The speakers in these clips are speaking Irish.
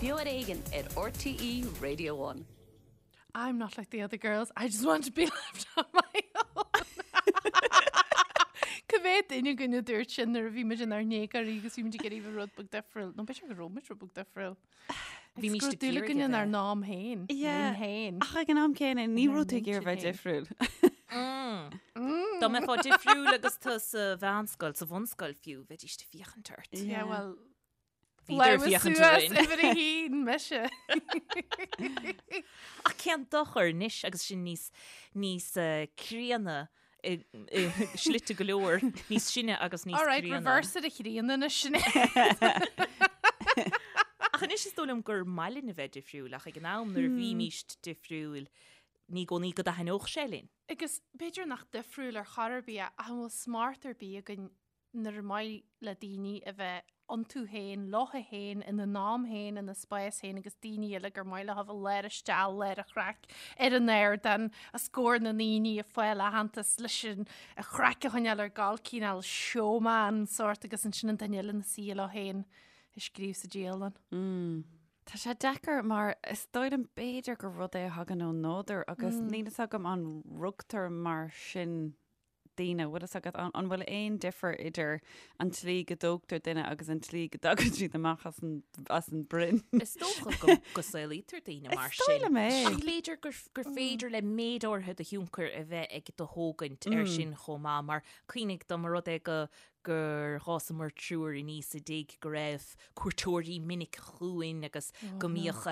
Beo ar Éigean ar RTÉ Radio One. I'm not like the other girls, I just want to be left on my own. Cá mhéad duine againn a dúirt sin nuair a bhí muid inár ndéagóirí agus bhí muid ag iarraidh bheith rud beag difriúil. Nó b'fhéidir go raibh muid rud beag difriúil. Bhí Bhí muid ag dúil iarraidh againn a inár bheith. n-am féin. Yeah. Linn féin. Ach ag an am céanna ní Inár raibh tú ag iarraidh bheith n-intinn difriúil. Dá mbeifeá difriúil agus tú sa mheánscoil, sa bhunscoil fiú, bheidís ag féachaint ort. Yeah, well, Bhíodar ag Labhair féachaint suas orainn. uimhir a haon, mise. Ach cén dochar anois agus sinn níos, níos eh, críonna i, i slite go leor, níos sine agus níos All right, críonna. reverse it a chríonna anois Sinéad. Ach anois is dóigh liom gur maith linn a bheith difriúil ach ag an am nuair a bhímíst difriúil ní i gcónaí go dtaitneodh sé linn. Agus b'fhéidir nach difriúil ar chor ar bith ach an bhfuil smacht ar bith againn nuair ar maith le daoine a bheith iontu féin, leo féin, ina n-am féin, ina spás féin agus daoine eile gur maith leo a bheith lár isteach, lár an chraic, ar an ardán, os comhair na ndaoine ag fáil aitheantas leis an chraic a choinneáil ar gabháil cineál showman sórt agus ansin an duine eile ina suí leo féin ag scríobh sa dialann. Tá sé deacair mar is dóigh liom b'fhéidir gur rud é a thagann ón nádúr agus níl fhios agam an rugtar mar sin daoine, bhfuil fhios agat, an bhfuil aon difear idir an tslí go dtógtar duine agus an tslí go dtagann siad amach as an, as an broinn? Is dócha go, go saolaítear daoine mar Is dóigh sin. liom é. Ach b'fhéidir gur, gur féidir le méid áirithe de thionchar a bheith ag do thógaint ar sin chomh maith, mar cuimhnigh dá mba rud é go, gur dh'fhásamar triúr aníos i dtigh go raibh cuairteoirí minic chugainn agus go mbíodh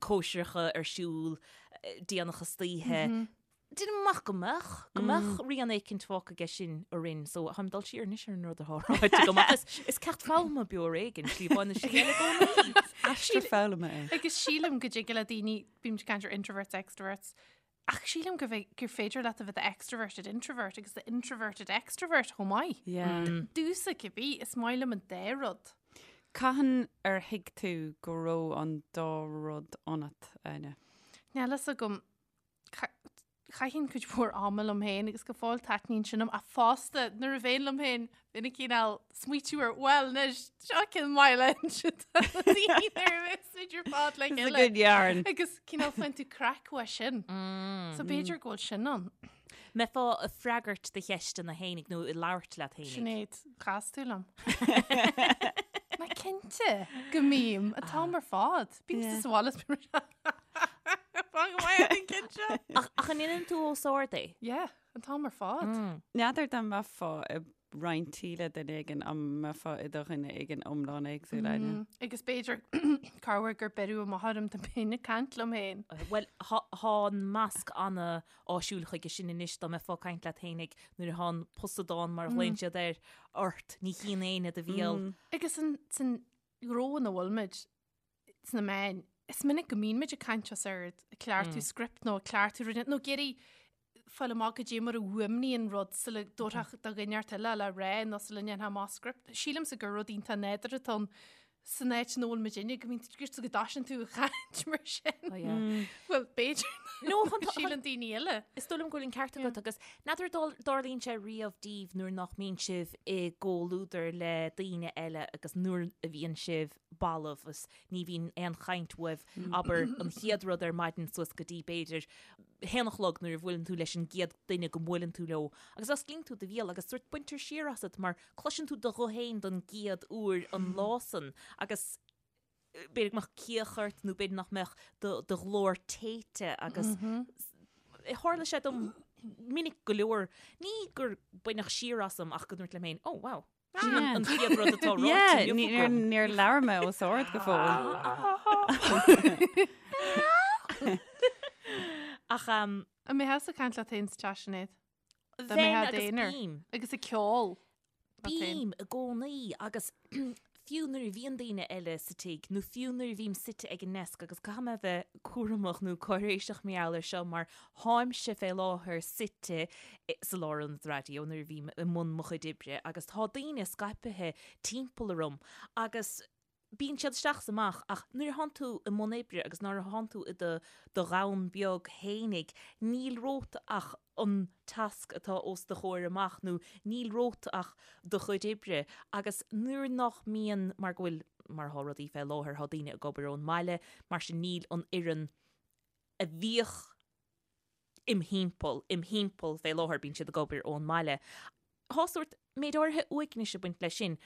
cóisireacha ar siúl déanach istoíche. Déanaim amach go mbeadh, go mbeadh rian éicint fágtha aige sin orainn, so táim ag dul siar anois ar an rud atá ráite agam ach is, is ceacht foghlama beo ar éigean, slí amháin nó slí eile i gcónaí. Aistear foghlama é. Agus sílim go dtig le daoine, bímid ag caint ar introverts, extroverts, ach sílim go bhfé- gur féidir leat a bheith extroverted introvert agus the introverted extrovert chomh maith. Yeah. Domhsa cibé, is maith liom an dá rud. Cathain ar thuig tú go raibh an dá rud ionat, Áine? Níl fhios agam. Chaithinn cuid mhór ama liom féin agus go fóill taitníonn sin liom ach fosta nuair a bheinn liom féin bheinn ag cineál smaoitiú ar bhuel anois seo ceann maith le inse do na daoine nuair a bheas muid ar fad le It's a chéile. good yarn. Agus cineál faigheann tú craic uaidh sin. So b'fhéidir go bhfuil sin ann. Mbeifeá ag freagairt do cheisteanna fhéinig nó ag labhairt leat fhéinig? Sinéad, chas tú liom. Ná cinnte go mbím an t-am ar fad. Bím sa bhaile is bím Fan go maith an cinnte. Ach ach an ndéanann tú os ard é? Yeah, an t-am ar fad. N'fheadar dá mbeifeá i roinnt tí le duine éigin an mbeifeá i do dhuine éigin iomlán éagsúil Áine. Agus b'fhéidir corruair gur beireadh amach orm dá mbeinn ag caint liom féin. Bhuel, thá an masc ana-áisiúil chuige sin anois dá mbeifeá ag caint leat fhéinig nuair atá an posadán mar a ghlaonn siad air ort, ní chíonn éinne do bhéal. Agus san san ghnó ina bhfuil muid, sna meáin, is minic go mbíonn muid ag caint os ard, ag cleachtadh script nó ag cleachtadh rud, nó ag iarraidh fáil amach goidé mar a fhuaimníonn rud sula dtabharfá do dhuine inteacht eile le rá nó sula ndéanfá amach script. Sílimse gur rud iontach nádúrtha atá ann san áit ina bhfuil muidinne, go mbíonn go dtosaíonn tú ag caint mar sin. Oh, yeah. Bhuel, b'fhéidir No, chun- nach síleann daoine eile. Is dóigh liom go bhfuil an ceart agat agus n'fheadar an dtarlaíonn sé riamh daoibh nuair nach mbíonn sibh i gcomhluadar le daoine eile agus nuair a bhíonn sibh balbh is ní bhíonn aon chaint uaibh, abair, an chéad rud ar maidin suas go dtí b'fhéidir haon a chlog nuair a bhuaileann tú leis an gcéad duine go mbuaileann tú leo agus osclaíonn tú do bhéal agus sórt baintear siar asat mar cloiseann tú do ghuth féin don gcéad uair an lá san agus b'fhéidir go mbeadh cíoch ort nó b'fhéidir nach mbeadh do do ghlór téite agus tharla sé dom minic go leor, ní gur baineadh siar asam ach go ndúirt liom féin, oh wow. Sin an chéad rud atá ráite inniu agam. Níor labhair mé os ard go fóill. Ach An mbeifeá ag caint leat féin sa teach, Sinéad? Dá Bheinn mbeifeá agus d'aonar. bím. Agus ag ceol. leat féin. Bím i gcónaí agus fiú nuair a bhíonn daoine eile sa tigh nó fiú nuair a bhím suite ag an ndeasc agus caithfidh mé a bheith cúramach nó cáiréiseach mar gheall air seo mar táimse fé láthair suite sa lárionad raidió nuair a bhím i mbun mo chuid oibre agus tá daoine scaipthe timpeall orm agus. Bíonn siad isteach is amach ach nuair a thánn tú i mbun oibre agus nuair a thánn tú i do do dhomhan beag fhéinig, níl romhat ach an tasc atá os do chomhair amach nó níl romhat ach do chuid oibre agus nuair nach mbíonn, mar go bhfuil, mar atá rudaí fé láthair, tá daoine ag obair ón mbaile, mar sin níl an fhoireann a bhíodh im thimpeall, im thimpeall fé láthair, bíonn siad ag obair ón mbaile. Tá sórt méid áirithe uaignis ag baint leis sin.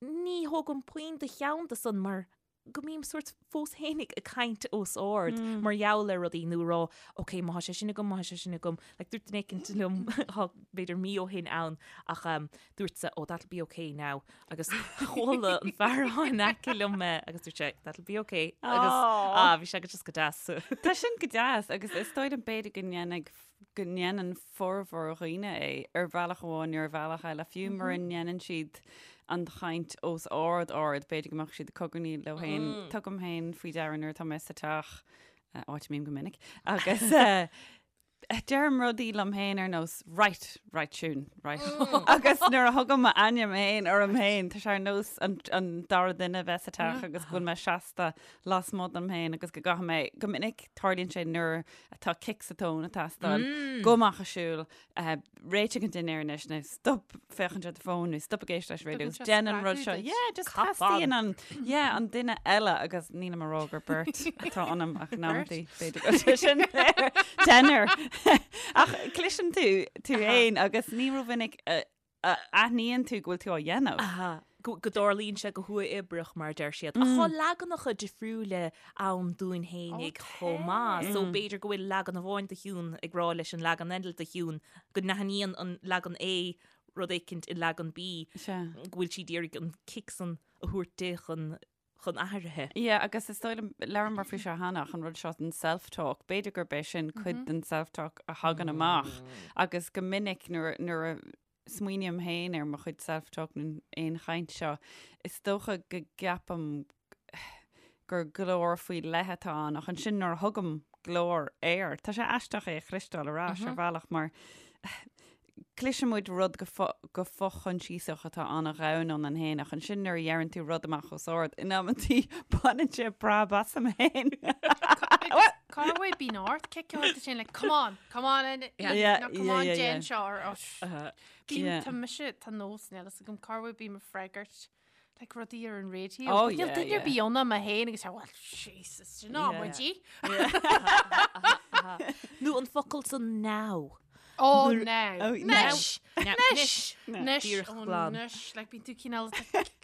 Ní thógaim puinn de cheann de san mar go mbím sórt fós fhéinig ag caint os ard mar gheall ar rudaí nó ag rá ok má tá sé sin agam, má tá sé sin agam. Like dúirt duine éicint liom tá b'fhéidir mí ó shin ann ach um, dúrtsa oh that'll be ok now agus chuala an fear atá in aice liom mé agus dúirt sé that'll be ok agus ah bhí sé go just go deas. Tá sin go deas agus is dóigh liom b'fhéidir go ndéanfaidh go ndéanann formhór dhaoine é ar bhealach amháin nó ar bhealach eile, fiú mura ndéanann siad an chaint os ard ard, b'fhéidir go mbeadh siad ag cogarnaíl leo féin. Tugaim féin faoi deara nuair atá mé sa teach, áit a mbím go minic, agus deirim rudaí liom féin ar nós right, right Siún, right. Agus nuair a thugaim m'ainm féin orm féin, tá sé ar nós an, an dara duine a bheith sa teach agus go bhfuil mé seasta lasmuigh dom féin agus go gcaithfidh mé, go minic tarlaíonn sé nuair atá cic sa tóin ag teastáil, gabh amach ag siúl, réitigh an dinnéar anois nó stop féachaint ar do fón nó stop ag éisteacht leis an raidió agus déan an rud seo. Yeah, just teastaíonn an, yeah, an duine eile agus nílim ag rá gur beirt atá ionam ach in amantaí b'fhéidir go bhfuil sé sin deichniúr. Ach cloiseann tú tú féin agus ní rómhinic a aithníonn tú go bhfuil tú á dhéanamh. Aha. Go dtarlaíonn sé go huathoibríoch, mar a deir siad. Ach tá leaganacha difriúla ann dúinn fhéinig chomh maith. So b'fhéidir go bhfuil leagan amháin de Shiún ag rá leis an leagan eile de Shiún go n-aithníonn an leagan A rud éicint i leagan B, go bhfuil sí d'iarraidh an cic san a thabhairt di chun chun athraithe. Yeah, agus is dóigh liom, labhramar faoi seo cheana, ach an rud seo den self-talk, b'fhéidir gurb é sin cuid den self-talk a thagann amach agus go minic nuair, nuair a smaoiním féin ar mo chuid self-talk nó aon chaint seo, is dócha go gceapaim gur glór faoi leith atá ann ach ansin nuair a thugaim glór air, tá sé aisteach é a chloisteáil ar ais ar bhealach mar Cloiseann muid rud go fo-choinsiasach atá an-dhomhain ionainn féin ach ansin nuair a dheireann tú rud amach os ard, in amantaí baineann sé preab asam féin. Cá bhfuil bíonn ort cic a thabhairt duit féin like come on, come on and yeah, no, come on déan seo or oh, Bím tá mise tá nós níl fhios agam cá bhfuil bím ag freagairt like rudaí ar an raidió. Oh, yeah, Níl duine ar bith ann ach mé féin agus well Jesus, sin ná muid í. Nó an focal san now. Oh, now. Oh, Anois. Anois. Anois. Oh, anois. Like bíonn tú cineál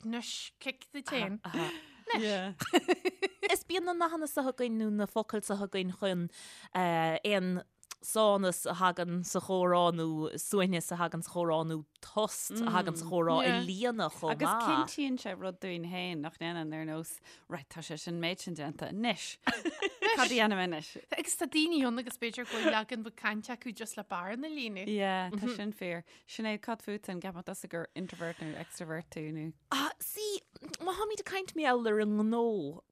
anois cic duit féin. Anois. Is bíonn na nathanna seo againn nó na focail seo againn chun eh, aon sánas a thagann sa chomhrá nó suaimhneas a thagann sa chomhrá nó tost a thagann sa chomhrá a líonadh chomh maith. Agus cinntíonn sé rud dúinn féin nach ndéanann ar nós, right, tá sé sin méid sin déanta anois. Cad a dhéanaim anois? Agus tá daoine ann agus b'fhéidir go bhfuil leagan beag cainte acu just le bearna a líonadh. Yeah, tá sin fíor. Sinéad, cad fút an gceapann tusa gur introvert nó extrovert tú nó? Ah, see, má tháimid ag caint mar gheall ar an ngnó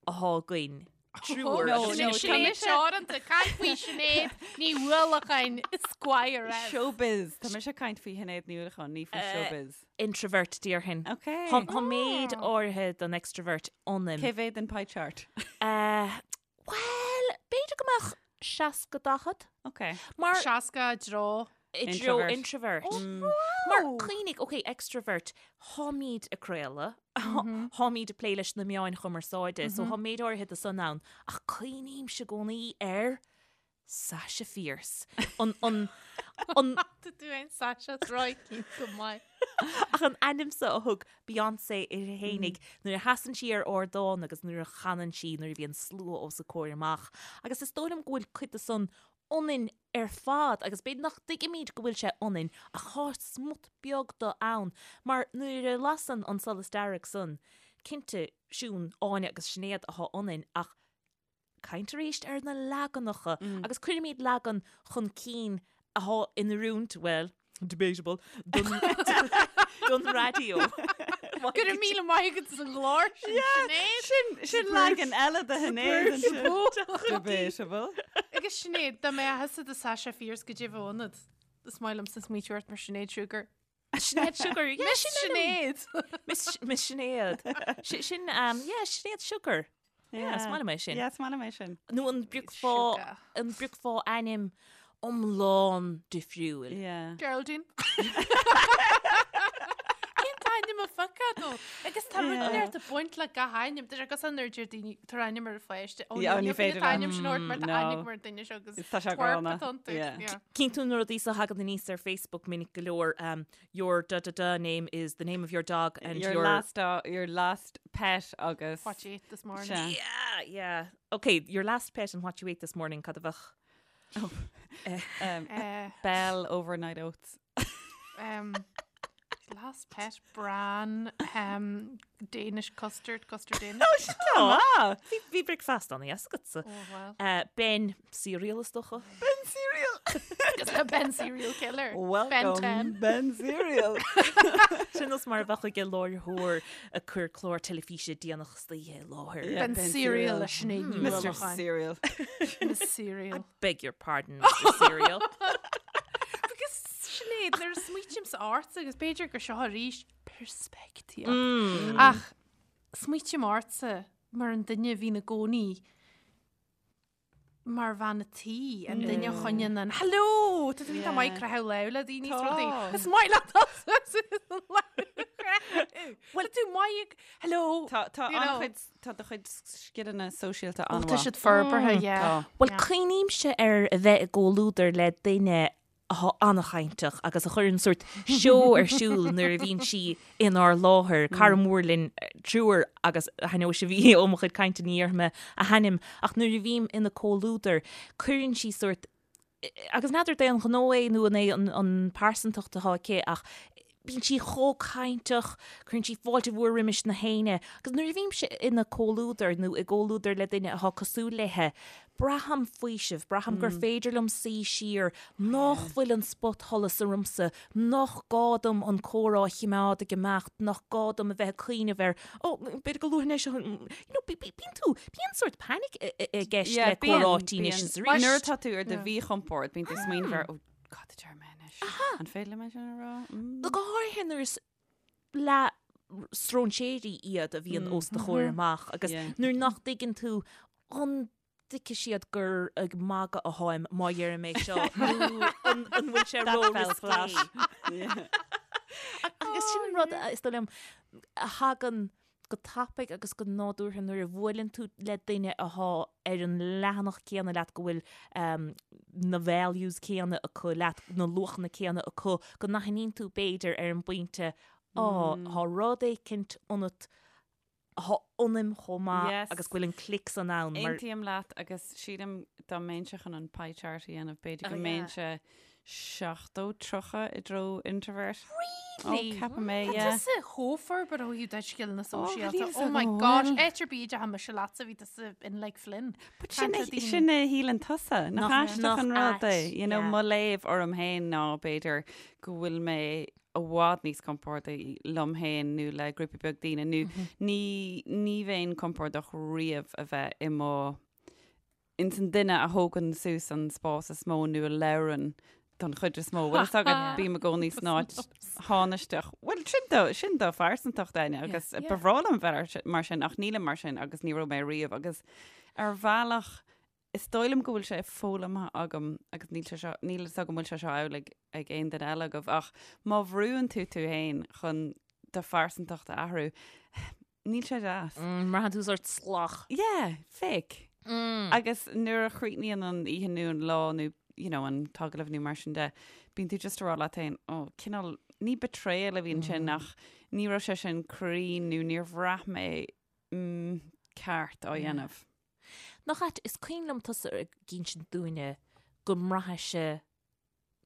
athá againn, triúr. No, no, Sinéad Teoranta, caint faoi Sinéad Ní Uallacháin, Esquire. Showbiz. Tá mise ag caint faoi Shinéad Ní Uallacháin, ní faoi showbiz. Introvert, déarfainn. Ok. Tá méid áirithe den extrovert ionam. Cé mhéad den pie chart? Bhuel, b'fhéidir go mbeadh 60 40. Ok. Mar 60 i dtreo. I dtreo introvert. Mar cuimhnigh, ok, extrovert, tháimid ag craoladh, tháimid ag plé leis na meáin chumarsáide, so tá méid áirithe de san ann, ach cuimhnímse i gcónaí ar Sasha Fierce. An, an, an. Tá tú ein Sasha Roicí go maith. Ach an ainm so a thug Beyoncé uirthi fhéinig nuair a sheasann sí ar ardán agus nuair a chanann sí nuair a bhíonn slua os a comhair amach. Agus is dóigh liom go bhfuil cuid de san ionainn ar fad agus b'fhéidir nach dtuigimid go bhfuil sé ionainn ach tá smut beag de ann mar nuair a lasann an solas dearg san, cinnte, Siún, Áine agus Sinéad athá ionainn ach caint arís ar na leaganacha agus cuirimid leagan chun cinn athá in oiriúint, bhuel, debatable, don, don raidió. Go raibh míle maith agat as an gclár sin, Sinéad. Sin, sin leagan eile de Shinéad ansin. Debatable. Agus Sinéad, dá mbeadh thusa do Sasha Fierce goidé a bheadh ionat. Is maith liomsa smaoitiú ort mar Sinéad Sugar. Sinéad Sugar, yeah, Miss sin ainm. Sinéad. Miss Miss Sinéad. Si- Sin, um, yeah, Sinéad Sugar. Yeah, is maith liom é sin. Yeah, is maith liom é sin. Nó an bpiocfá Sugar. an bpiocfá ainm iomlán difriúil. Yeah. Geraldine. Cén t-ainm a phiocfá dó? Agus tá rud inteacht ag baint le gach ainm. Tá sé cosúil nuair a deir daoine tabhair ainm ar an pháiste. Ó, Yeah, ní ní féidir féidir ainm sin a thabhairt mar tá No. ainm mar duine seo agus Tá sé twerp gránna. atá iontu. Yeah. Yeah. Cíonn tú na rudaí so a thagann aníos ar Facebook minic go leor, um, your da da da name is the name of your dog and Your your last dog, your last pet agus What you ate this morning. Sea. Yeah, yeah. Okay, your last pet and what you ate this morning, cad a bheadh? um, Eh, Bell overnight oats. um, last pet bran um, Danish custard custard Danish. Ah, Bhí bhí bricfeasta ann yes agatsa. Oh, well. Uh, ben cereal is dócha. Ben cereal. Agus tá Ben serial killer. Ben Welcome, 10. Ben cereal. Sin nós mar a bheadh ag láithreoir ag cur clár teilifíse déanach istoíche i láthair. Yeah. Ben Ben cereal cereal. le Sinéad Ní Mr. Uallacháin. Cereal. Miss Cereal. Beg your pardon, Mr. Cereal. Agus Sinéad, nuair a smaoitímse ortsa agus b'fhéidir gur seo arís peirspictíocht. Ach smaoitím ortsa mar an duine a bhíonn i gcónaí mar bhean a tí, an duine a choinníonn an Hello! Tá tú iontach maith ag croitheadh lámh le daoine is rudaí. Tá. Is maith leat Bhuel tú maith ag Hello! Tá tá You know. an-chuid tá do chuid scileanna sóisialta Ó, an-mhaith. Tá siad forbartha, yeah. Tá. Bhuel, Yeah. cuimhnímse ar a bheith i gcomhluadar le duine atá an-chainteach agus a chuireann sórt seó ar siúl nuair a bhíonn sí inár láthair, cara mór linn triúr agus thaitneodh sibh ó mo chuid cainte ní dhéarfaidh mé a hainm ach nuair a bhím ina comhluadar cuireann sí sórt agus n'fheadar d'aon ghnó é nó an é an pearsantacht atá aici ach bíonn sí chomh cainteach, cuireann sí fáilte mhór roimis na héinne agus nuair a bhímse ina comhluadar nó i gcomhluadar le duine atá cosúil léithe, braithim faoiseamh, braithim gur féidir liom suí siar, nach bhfuil an spotsholas ormsa, nach gá dom an comhrá a chimeád ag imeacht, nach gá dom a bheith ag cuimhneamh ar, ó, b'fhéidir go luafainn é seo, you know, bíonn tú, bíonn sórt panic i gceist le comhráití anois is arís. Nuair atá tú ar do mhíchompord, bíonn tú ag smaoineamh ar, ó, Cad a deir mé anois? An féidir liom é sin a rá? Mm. Go háirithe nuair is leath-stróinséirí iad a bhíonn os do chomhair amach agus Yeah. nuair nach dtuigeann tú an dtuigfidh siad gur ag magadh atáim má dheirim é seo nó an an bhfuil sé That fell ró-risqué. flat. Yeah. Agus sin an rud a- is dóigh liom a thagann go tapaidh agus go nádúrtha nuair a bhuaileann tú le duine athá ar an leathanach céanna leat, go bhfuil na values céanna acu leat, na luachanna céanna acu, go n-aithníonn tú b'fhéidir ar an bpointe, á, tá rud éicint ionat athá ionaim chomh maith agus go bhfuil an click san ann mar. Aontaím leat agus sílim dá mbeinnse chun an pie chart a dhéanamh, b'fhéidir go mbeinnse 70, 30 i dtreo introvert. Really? Oh, ceapaim é, Tá yeah. tusa chomh forbartha ó thaobh do scileanna sóisialta. níl Oh my agam gosh, bhfuil. áit ar bith a dteachaigh mise leatsa bhí tusa in like Flynn. But sin Caint le a- daoine. sin a shíleann tusa, nach Nach- aisteach nach an rud é. ait, You know, yeah. mo léamh orm féin ná b'fhéidir go bhfuil mé i bhfad níos compordaí liom féin nó le grúpa beag daoine nó ní ní bheinn compordach riamh a bheith i mo ins an duine a thógann suas an spás is mó nó a labhrann don chuid is mó. Bhfuil fhios agat, bím i gcónaí san áit thánaisteach. Bhuel, sin do, sin do phearsantacht, Áine, agus ba bhreá liom bheith mar sin, ach nílim mar sin agus ní raibh mé riamh agus ar bhealach is dóigh liom go bhfuil sé foghlamtha agam agus níl sé seo, níl fhios agam bhfuil sé seo amhlaidh ag aon duine eile agaibh ach má bhrúann tú tú féin chun do phearsantacht a athrú, Níl sé deas. Braitheann tú sórt salach. Yeah, fake. Agus nuair a chríochnaíonn an oíche nó an lá nó you know, an t-agallamh nó mar sin de, bíonn tú just ag rá leat féin, oh, cineál, ní betrayal a bhí ansin ach ní raibh sé sin cruinn nó níor bhraith mé mm, ceart á dhéanamh. Nach ait, is cuimhin liom tusa ag insint dúinne go mbraithfeása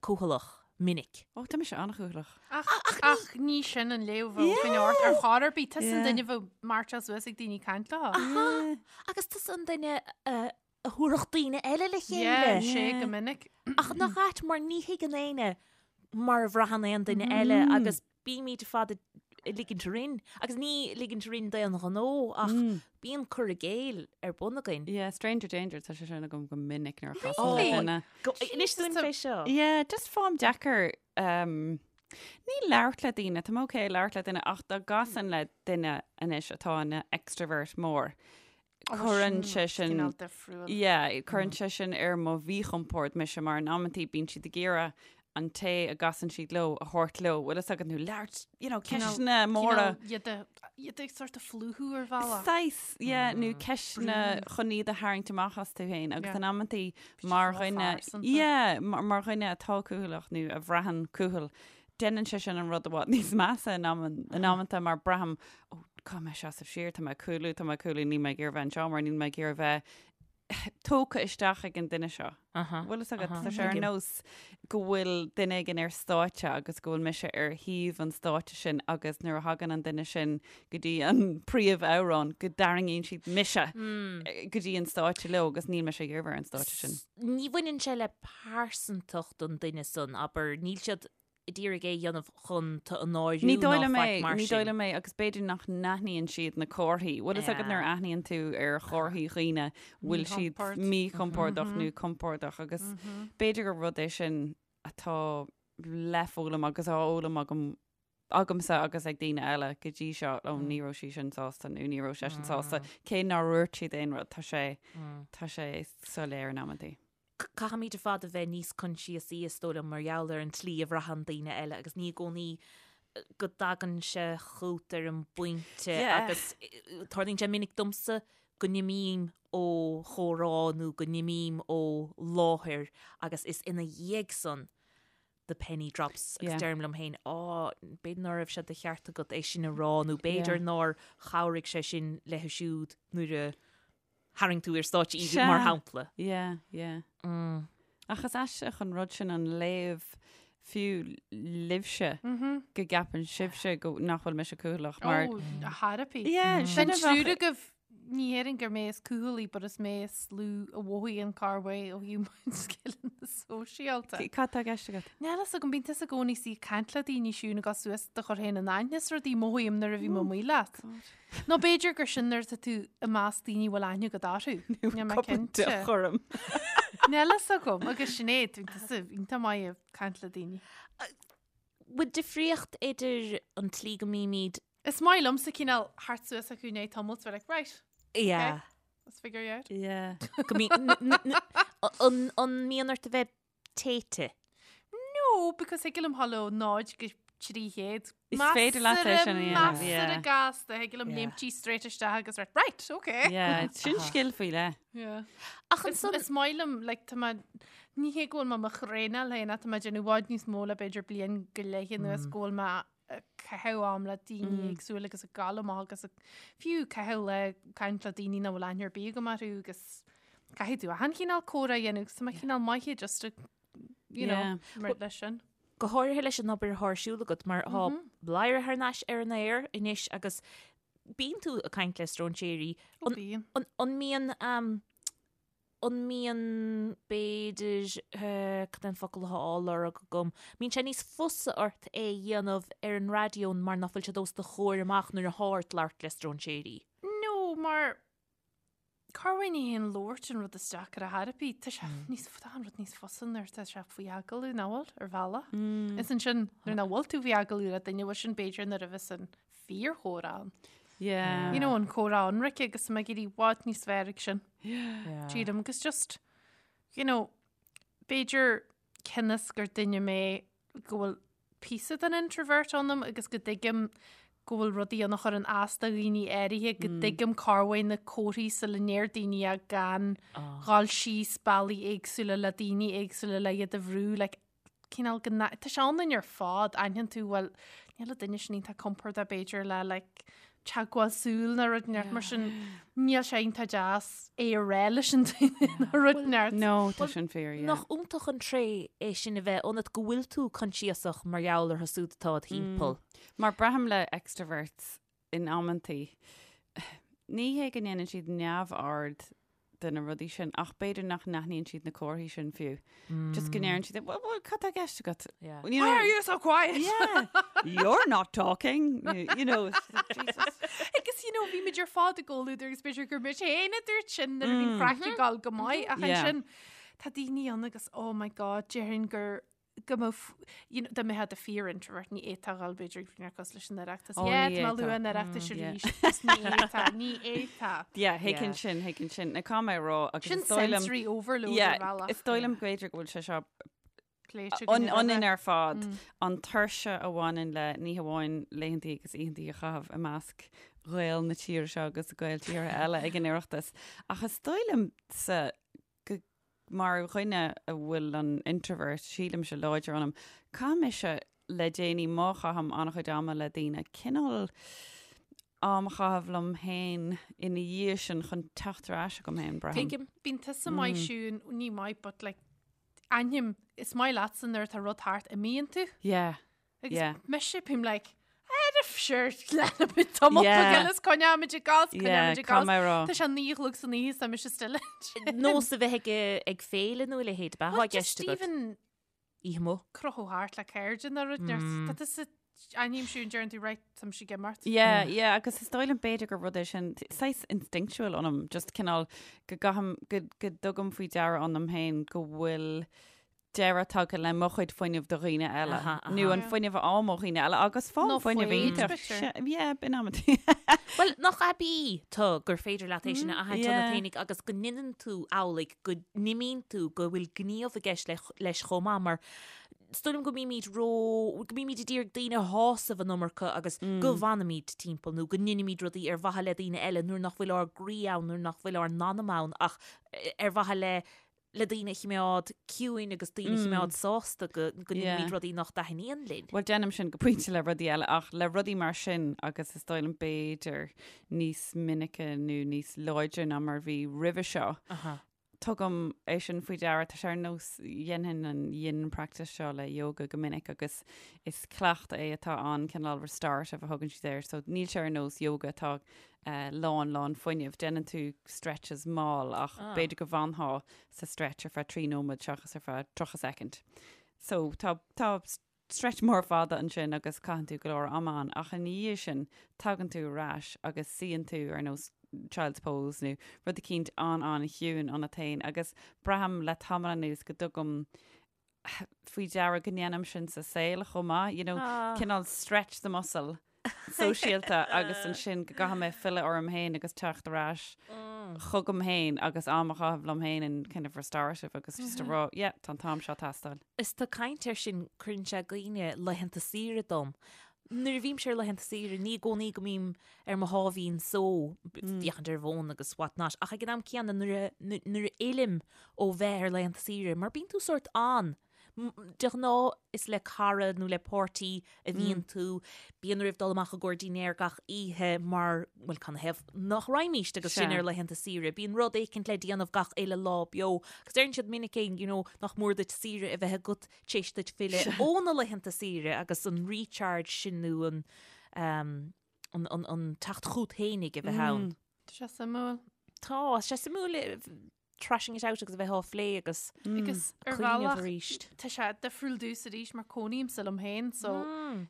cúthaileach minic. Ó, tá mise an-chúthaileach. Ach, ach ní sin an léamh a bheadh ort ar chor ar bith. Tusa an duine a bheadh mairteáil suas ag daoine caint leo. Aha! Agus tusa an duine a thabharfadh daoine eile le chéile. Yeah, sé go minic. Ach nach ait mar ní thuigeann éinne mar a bhraitheann aon duine eile agus bímid ar fad ag ligint orainn, agus ní ligint orainn d'aon ghnó ach bíonn cur i gcéill ar bun againn. Yeah, stranger danger, tá sé sin agam go minic nuair a chasaim le Really? duine. Inis dúinn fé seo. Yeah, just faighim deacair um, Ní labhairt le daoine, tá mé ok labhairt le duine ach dá gcasainn le duine anois atá ina extrovert mór, cuireann sé sin, Cineál difriúil. yeah, cuireann sé sin ar mo mhíchompord mise mar in amantaí bíonn siad ag iarraidh an té a gcasann siad leo a thabhairt leo, bhfuil fhios agat nó labhairt, you know, ceisteanna móra. Cineál iad a, iad ag sort of phlúchadh ar bhealach. Saghas, yeah, nó ceisteanna chun iad a tharraingt amach astu féin agus Yeah. in amantaí mar ró dhuine, phearsanta. yeah, mar, mar dhuine atá cúthaileach nó a bhraitheann cúthail, déanann sé sin an rud i bhfad níos measa in aman, in amanta mar braithim, ó, caithfidh mé seasamh siar, tá mé ag cúlú, tá mé ag cúlú, níl mé ag iarraidh bheith anseo mar níl mé ag iarraidh bheith tógtha isteach ag an duine seo. Bhfuil fhios agat, tá sé ar nós go bhfuil duine éigin ar stáitse agus go bhfuil mise ar thaobh an stáitse sin agus nuair a thagann an duine sin go dtí an príomhamhrán go dtarraingíonn siad mise go dtí an stáitse leo agus níl mise ag iarraidh bheith ar an stáitse sin. Ní bhaineann sé le pearsantacht an duine san, abair, níl siad ag iarraidh é a dhéanamh chun tú a náiriú Ní dóigh ná liom faic é, mar ní dóigh sin. liom é agus b'fhéidir nach n-aithníonn siad na comharthaí. Bhfuil fhios agat nuair a aithníonn tú ar chomharthaí dhaoine bhfuil siad Míchompord. míchompordach nó compordach agus b'fhéidir gur rud é sin atá le foghlaim agus á fhoghlaim agam agamsa agus ag daoine eile go dtí seo, ó ní raibh sí sin sásta nó ní raibh seisean sásta, cé nár dhúirt siad aon rud, tá sé, tá sé soiléir in amantaí. Caithfimid ar fad a bheith níos coinsiasaí, is dóigh liom, mar gheall ar an tslí a bhraitheann daoine eile agus ní i gcónaí go dtagann sé chugat ar an bpointe agus tarlaíonn sé minic domsa go n-imím ó chomhrá nó go n-imím ó láthair agus is ina dhiaidh san the penny drops agus deirim liom féin, á, b'fhéidir ná raibh sé de cheart agat é sin a rá nó b'fhéidir nár chabhraigh sé sin léi siúd nuair a tharraing tú ar stáitse í, mar shampla. Yeah, yeah. Ach is aisteach an rud sin an léamh fiú libhse go gceapann sibhse go nach bhfuil mise cúthaileach mar. Ó, a thairpí. Yeah, sin An a bheadh. triúr agaibh, ní dhéarfainn gur mé is cúthalaí, but is mé is lú a mhothaíonn corrmhaith ó thaobh mo scileanna sóisialta. Cad tá i gceist agat? Níl fhios agam, bíonn tusa i gcónaí ag caint le daoine Siún ag dul suas do chur féin in aithne is rudaí, mothaím nuair a bhím amuigh leat. Nó b'fhéidir gur sin nuair atá tú i measc daoine a bhfuil aithne agat orthu. Níl mé cinnte. Chorm. Níl fhios agam agus Sinéad, bíonn tusa iontach maith ag caint le daoine. Bhfuil difríocht idir an tslí go mbímid. Is maith liomsa cineál theacht suas acu i ndiaidh tamaill is bheith like, right, Yeah. let's figure you out. Yeah. Go mbíonn, an mbíonn ort a bheith téite. No, because thig liom dhul ó 0 go 300. Is féidir leat é sin a dhéanamh, yeah. Measartha gasta, thig liom Yeah. léimtí straight isteach agus right, right, okay. Yeah, sin scil faoi leith. Yeah. Ach Is, ansan, is maith liom, like, tá mé, ní hé go bhfuil mé mo thraenáil féin ach tá mé ag déanamh i bhfad níos mó le b'fhéidir bliain go leith anuas go bhfuil mé ag caitheamh am le daoine éagsúla agus ag gabháil amach agus ag fiú caitheamh le caint le daoine nach bhfuil aithne ar bith agam orthu agus caithfidh tú achan chineál comhrá a dhéanamh agus tá mé cineál maith just to, you know, Yeah. mar leis sin. go háirithe leis an obair atá ar siúl agat mar tá Bladhaire thar n-ais ar an aer anois agus bíonn tú ag caint le stróinséirí. Ó, bíonn. An, an mbíonn um, An mbíonn, b'fhéidir, cad é an focal atá á lorg agam, mbíonn sé níos fusa ort é a dhéanamh ar an raidió mar nach bhfuil siad os do chomhair amach nuair atá ort labhairt le stróinséirí? No, mar corruair ní hé an labhairt an rud is deacra ar chor ar bith. Tá sé níos, tá an rud níos fusa nuair atá sé faoi agallamh, nach bhfuil, ar bhealach. Is ansin, nuair nach bhfuil tú faoi agallamh le duine, bhfuil sin b'fhéidir nuair a bheas an fíorchomhrá ann. Yeah. You know, an comhrá ionraic agus tá mé ag éirí i bhfad níos fearr ag sin. Yeah. Sílim agus just, you know, b'fhéidir cionn is gur duine mé go bhfuil píosa den introvert ionam agus go dtuigim go bhfuil rudaí ann a chuireann as do dhaoine áirithe, go dtuigim corruair na comharthaí sula ndeir daoine é gan dhul síos bealaí éagsúla le daoine éagsúla le iad a bhrú, like, cineál go n- tá sé ionainn ar fad, aithníonn tú, bhuel, níl an duine sin iontach compordach b'fhéidir le like teagmháil súl nó rud inteacht mar sin, níl sé iontach deas é a rá leis an duine nó rud inteacht. No, tá sin fíor, yeah. Nach iontach an tréith é sin a bheith ionat go bhfuil tú coinsiasach mar gheall orthu siúd atá id thimpeall. Mar braithim le extroverts in amantaí, ní hé go ndéanann siad neamhaird de na rudaí sin, ach b'fhéidir nach n-aithníonn siad na comharthaí sin fiú. Just go ndeireann siad, well, well, cad tá i gceist agat? Yeah. You know, Why are you so quiet? Yeah. You're not talking. You, you know, it's just like, Jesus. Agus you know, bhí muid ar fad i gcomhluadar agus b'fhéidir gur mise féin a dúirt sin nuair a bhí an craic ag dul go maith ach Yeah. ansin tá daoine ann agus oh my god, déarfainn gur go mbeadh, you know, dá mbeifeá i do fíor-introvert, ní fhéadfá a dhul b'fhéidir ag rud cosúil leis an Oireachtas. Ó, Yeah, ní tá mé ag lua fhéadfá. an Oireachtais arís. Agus ní fhéadfá, ní fhéadfá. Yeah, thuigfinn sin, thuigfinn sin. Now caithfidh mé a rá agus Sin is dóigh liom- sensory overload ar Yeah, bhealach. is dóigh liom b'fhéidir go bhfuil sé seo Pléite againn roimhe. ionainn ar fad, an tuirse a bhaineann le ní hamháin laethantaí agus oícheantaí a chaitheamh i measc Ghaeil na tíre seo agus Gaeil tíortha eile ag an Oireachtas, ach is dóigh liomsa go mar dhuine a bhfuil an introvert, sílimse, láidir ionam, caithfidh mise le déanaí má chaithim an-chuid ama le daoine, cineál am a chaitheamh liom féin ina dhiaidh sin chun teacht ar ais chugam féin, braithim. Tuigim. Bíonn tusa maith Siún, ní maith but like aithním, is maith leatsa nuair atá rud thart, imíonn tú. Yeah. Agus Yeah. mise bím like, "Ar sure, leanfaimid tamall Yeah. beag eile is coinneoimid ag gabháil, Yeah, coinneoimid ag caithfidh gabháil. mé a rá. Tá sé 9 a chlog san oíche is tá mise still ansin. Nós a bheith ag, ag féile nó a leithéid, ab ea Well, atá i just gceist agat. even Oíche amuigh. crochadh thart le cairde nó rud, tá tusa aithním Siún deireann tú right, tá mise ag imeacht. Yeah, yeah, agus is dóigh liom b'fhéidir gur rud é sin saghas instinctual ionam, just cineál go gcaithim, go, go dtugaim faoi deara ionam féin go bhfuil deireadh tagtha le mo chuid fuinnimh do dhaoine eile, Aha, aha. nó an fuinneamh a fháim ó dhaoine eile, agus fáim Nó fuinneamh foighid, iontach. b'fhéidir. Yeah, b'in amantaí. Bhuel, nach aibí tú gur féidir leat é sin a aithint yeah. ionat féinig agus go ndeineann tú amhlaidh, go n-imíonn tú, go bhfuil gníomh i gceist leis chomh maith, mar is dóigh liom go mbímid ró, go mbímid ag iarraidh daoine a shásamh an iomarca agus go bhfanaimid timpeall nó go ndeinimid rudaí ar mhaithe le daoine eile nuair nach bhfuil ár gcroí ann, nuair nach bhfuil ár n-anam ann ach ar mhaithe le le daoine a chimeád ciúin agus daoine a chimeád sásta go go ndeinimid rudaí nach dtaitníonn linn. Bhuel, déanaim sin go pointe le rudaí eile ach le rudaí mar sin agus is dóigh liom b'fhéidir níos minice nó níos láidre ná mar bhí roimhe seo. Tugaim é sin faoi deara, tá sé ar nós dhéanfainn an yin practice seo le yoga go minic agus is cleachtadh é atá an cineál restorative a thugann siad air, so níl sé ar nós yoga atá lán lán fuinnimh. Déanann tú stretches mall ach b'fhéidir go bhfanfá sa stretch ar feadh 3 nóiméad seachas ar feadh 30 soicind. So tá tá stretch mór fada ansin agus caitheann tú go leor ama ann ach ina dhiaidh sin tagann tú ar ais agus suíonn tú ar nós child's pose nó rud eicínt an-an-chiúin ionat féin agus braithim le tamall anuas go dtugaim faoi deara go ndéanaim sin sa saol chomh maith, you know, cineál stretch the muscle sóisialta agus ansin go gcaithfidh mé filleadh orm féin agus teacht ar ais chugam féin agus am a chaitheamh liom féin in kind of restorative agus just a rá, yeah, tá an t-am seo ag teastáil. Is tú ag caint air sin, cuireann sé i gcuimhne laethanta saoire dom. Nuair a bhímse ar laethanta saoire, ní i gcónaí go mbím ar mo sháimhín só, féachaint ar an bhfón agus what not, ach ag an am céanna nuair a, nuair a fhillim ó bheith ar laethanta saoire, mar bíonn tú sórt an, de ghnáth is le cara nó le páirtí a bhíonn tú, bíonn oraibh dul amach i gcomhair dinnéar gach oíche mar, bhuel, canathaobh nach raghaimíst agus sinn ar laethanta saoire, bíonn rud éicint le déanamh gach uile lá beo, agus deireann siad minic é, you know, nach mór duit saoire a bheith agat tar éis duit filleadh ó na laethanta saoire agus an recharge sin nó an, an, an, an teacht chút fhéinig a bheith ann. Tá sé suimiúil. Tá, tá sé suimiúil thrashing it out agus a bheith á phlé agus Agus ar cuimhneamh bhealach arís. tá sé difriúil domhsa arís mar cónaímse liom féin so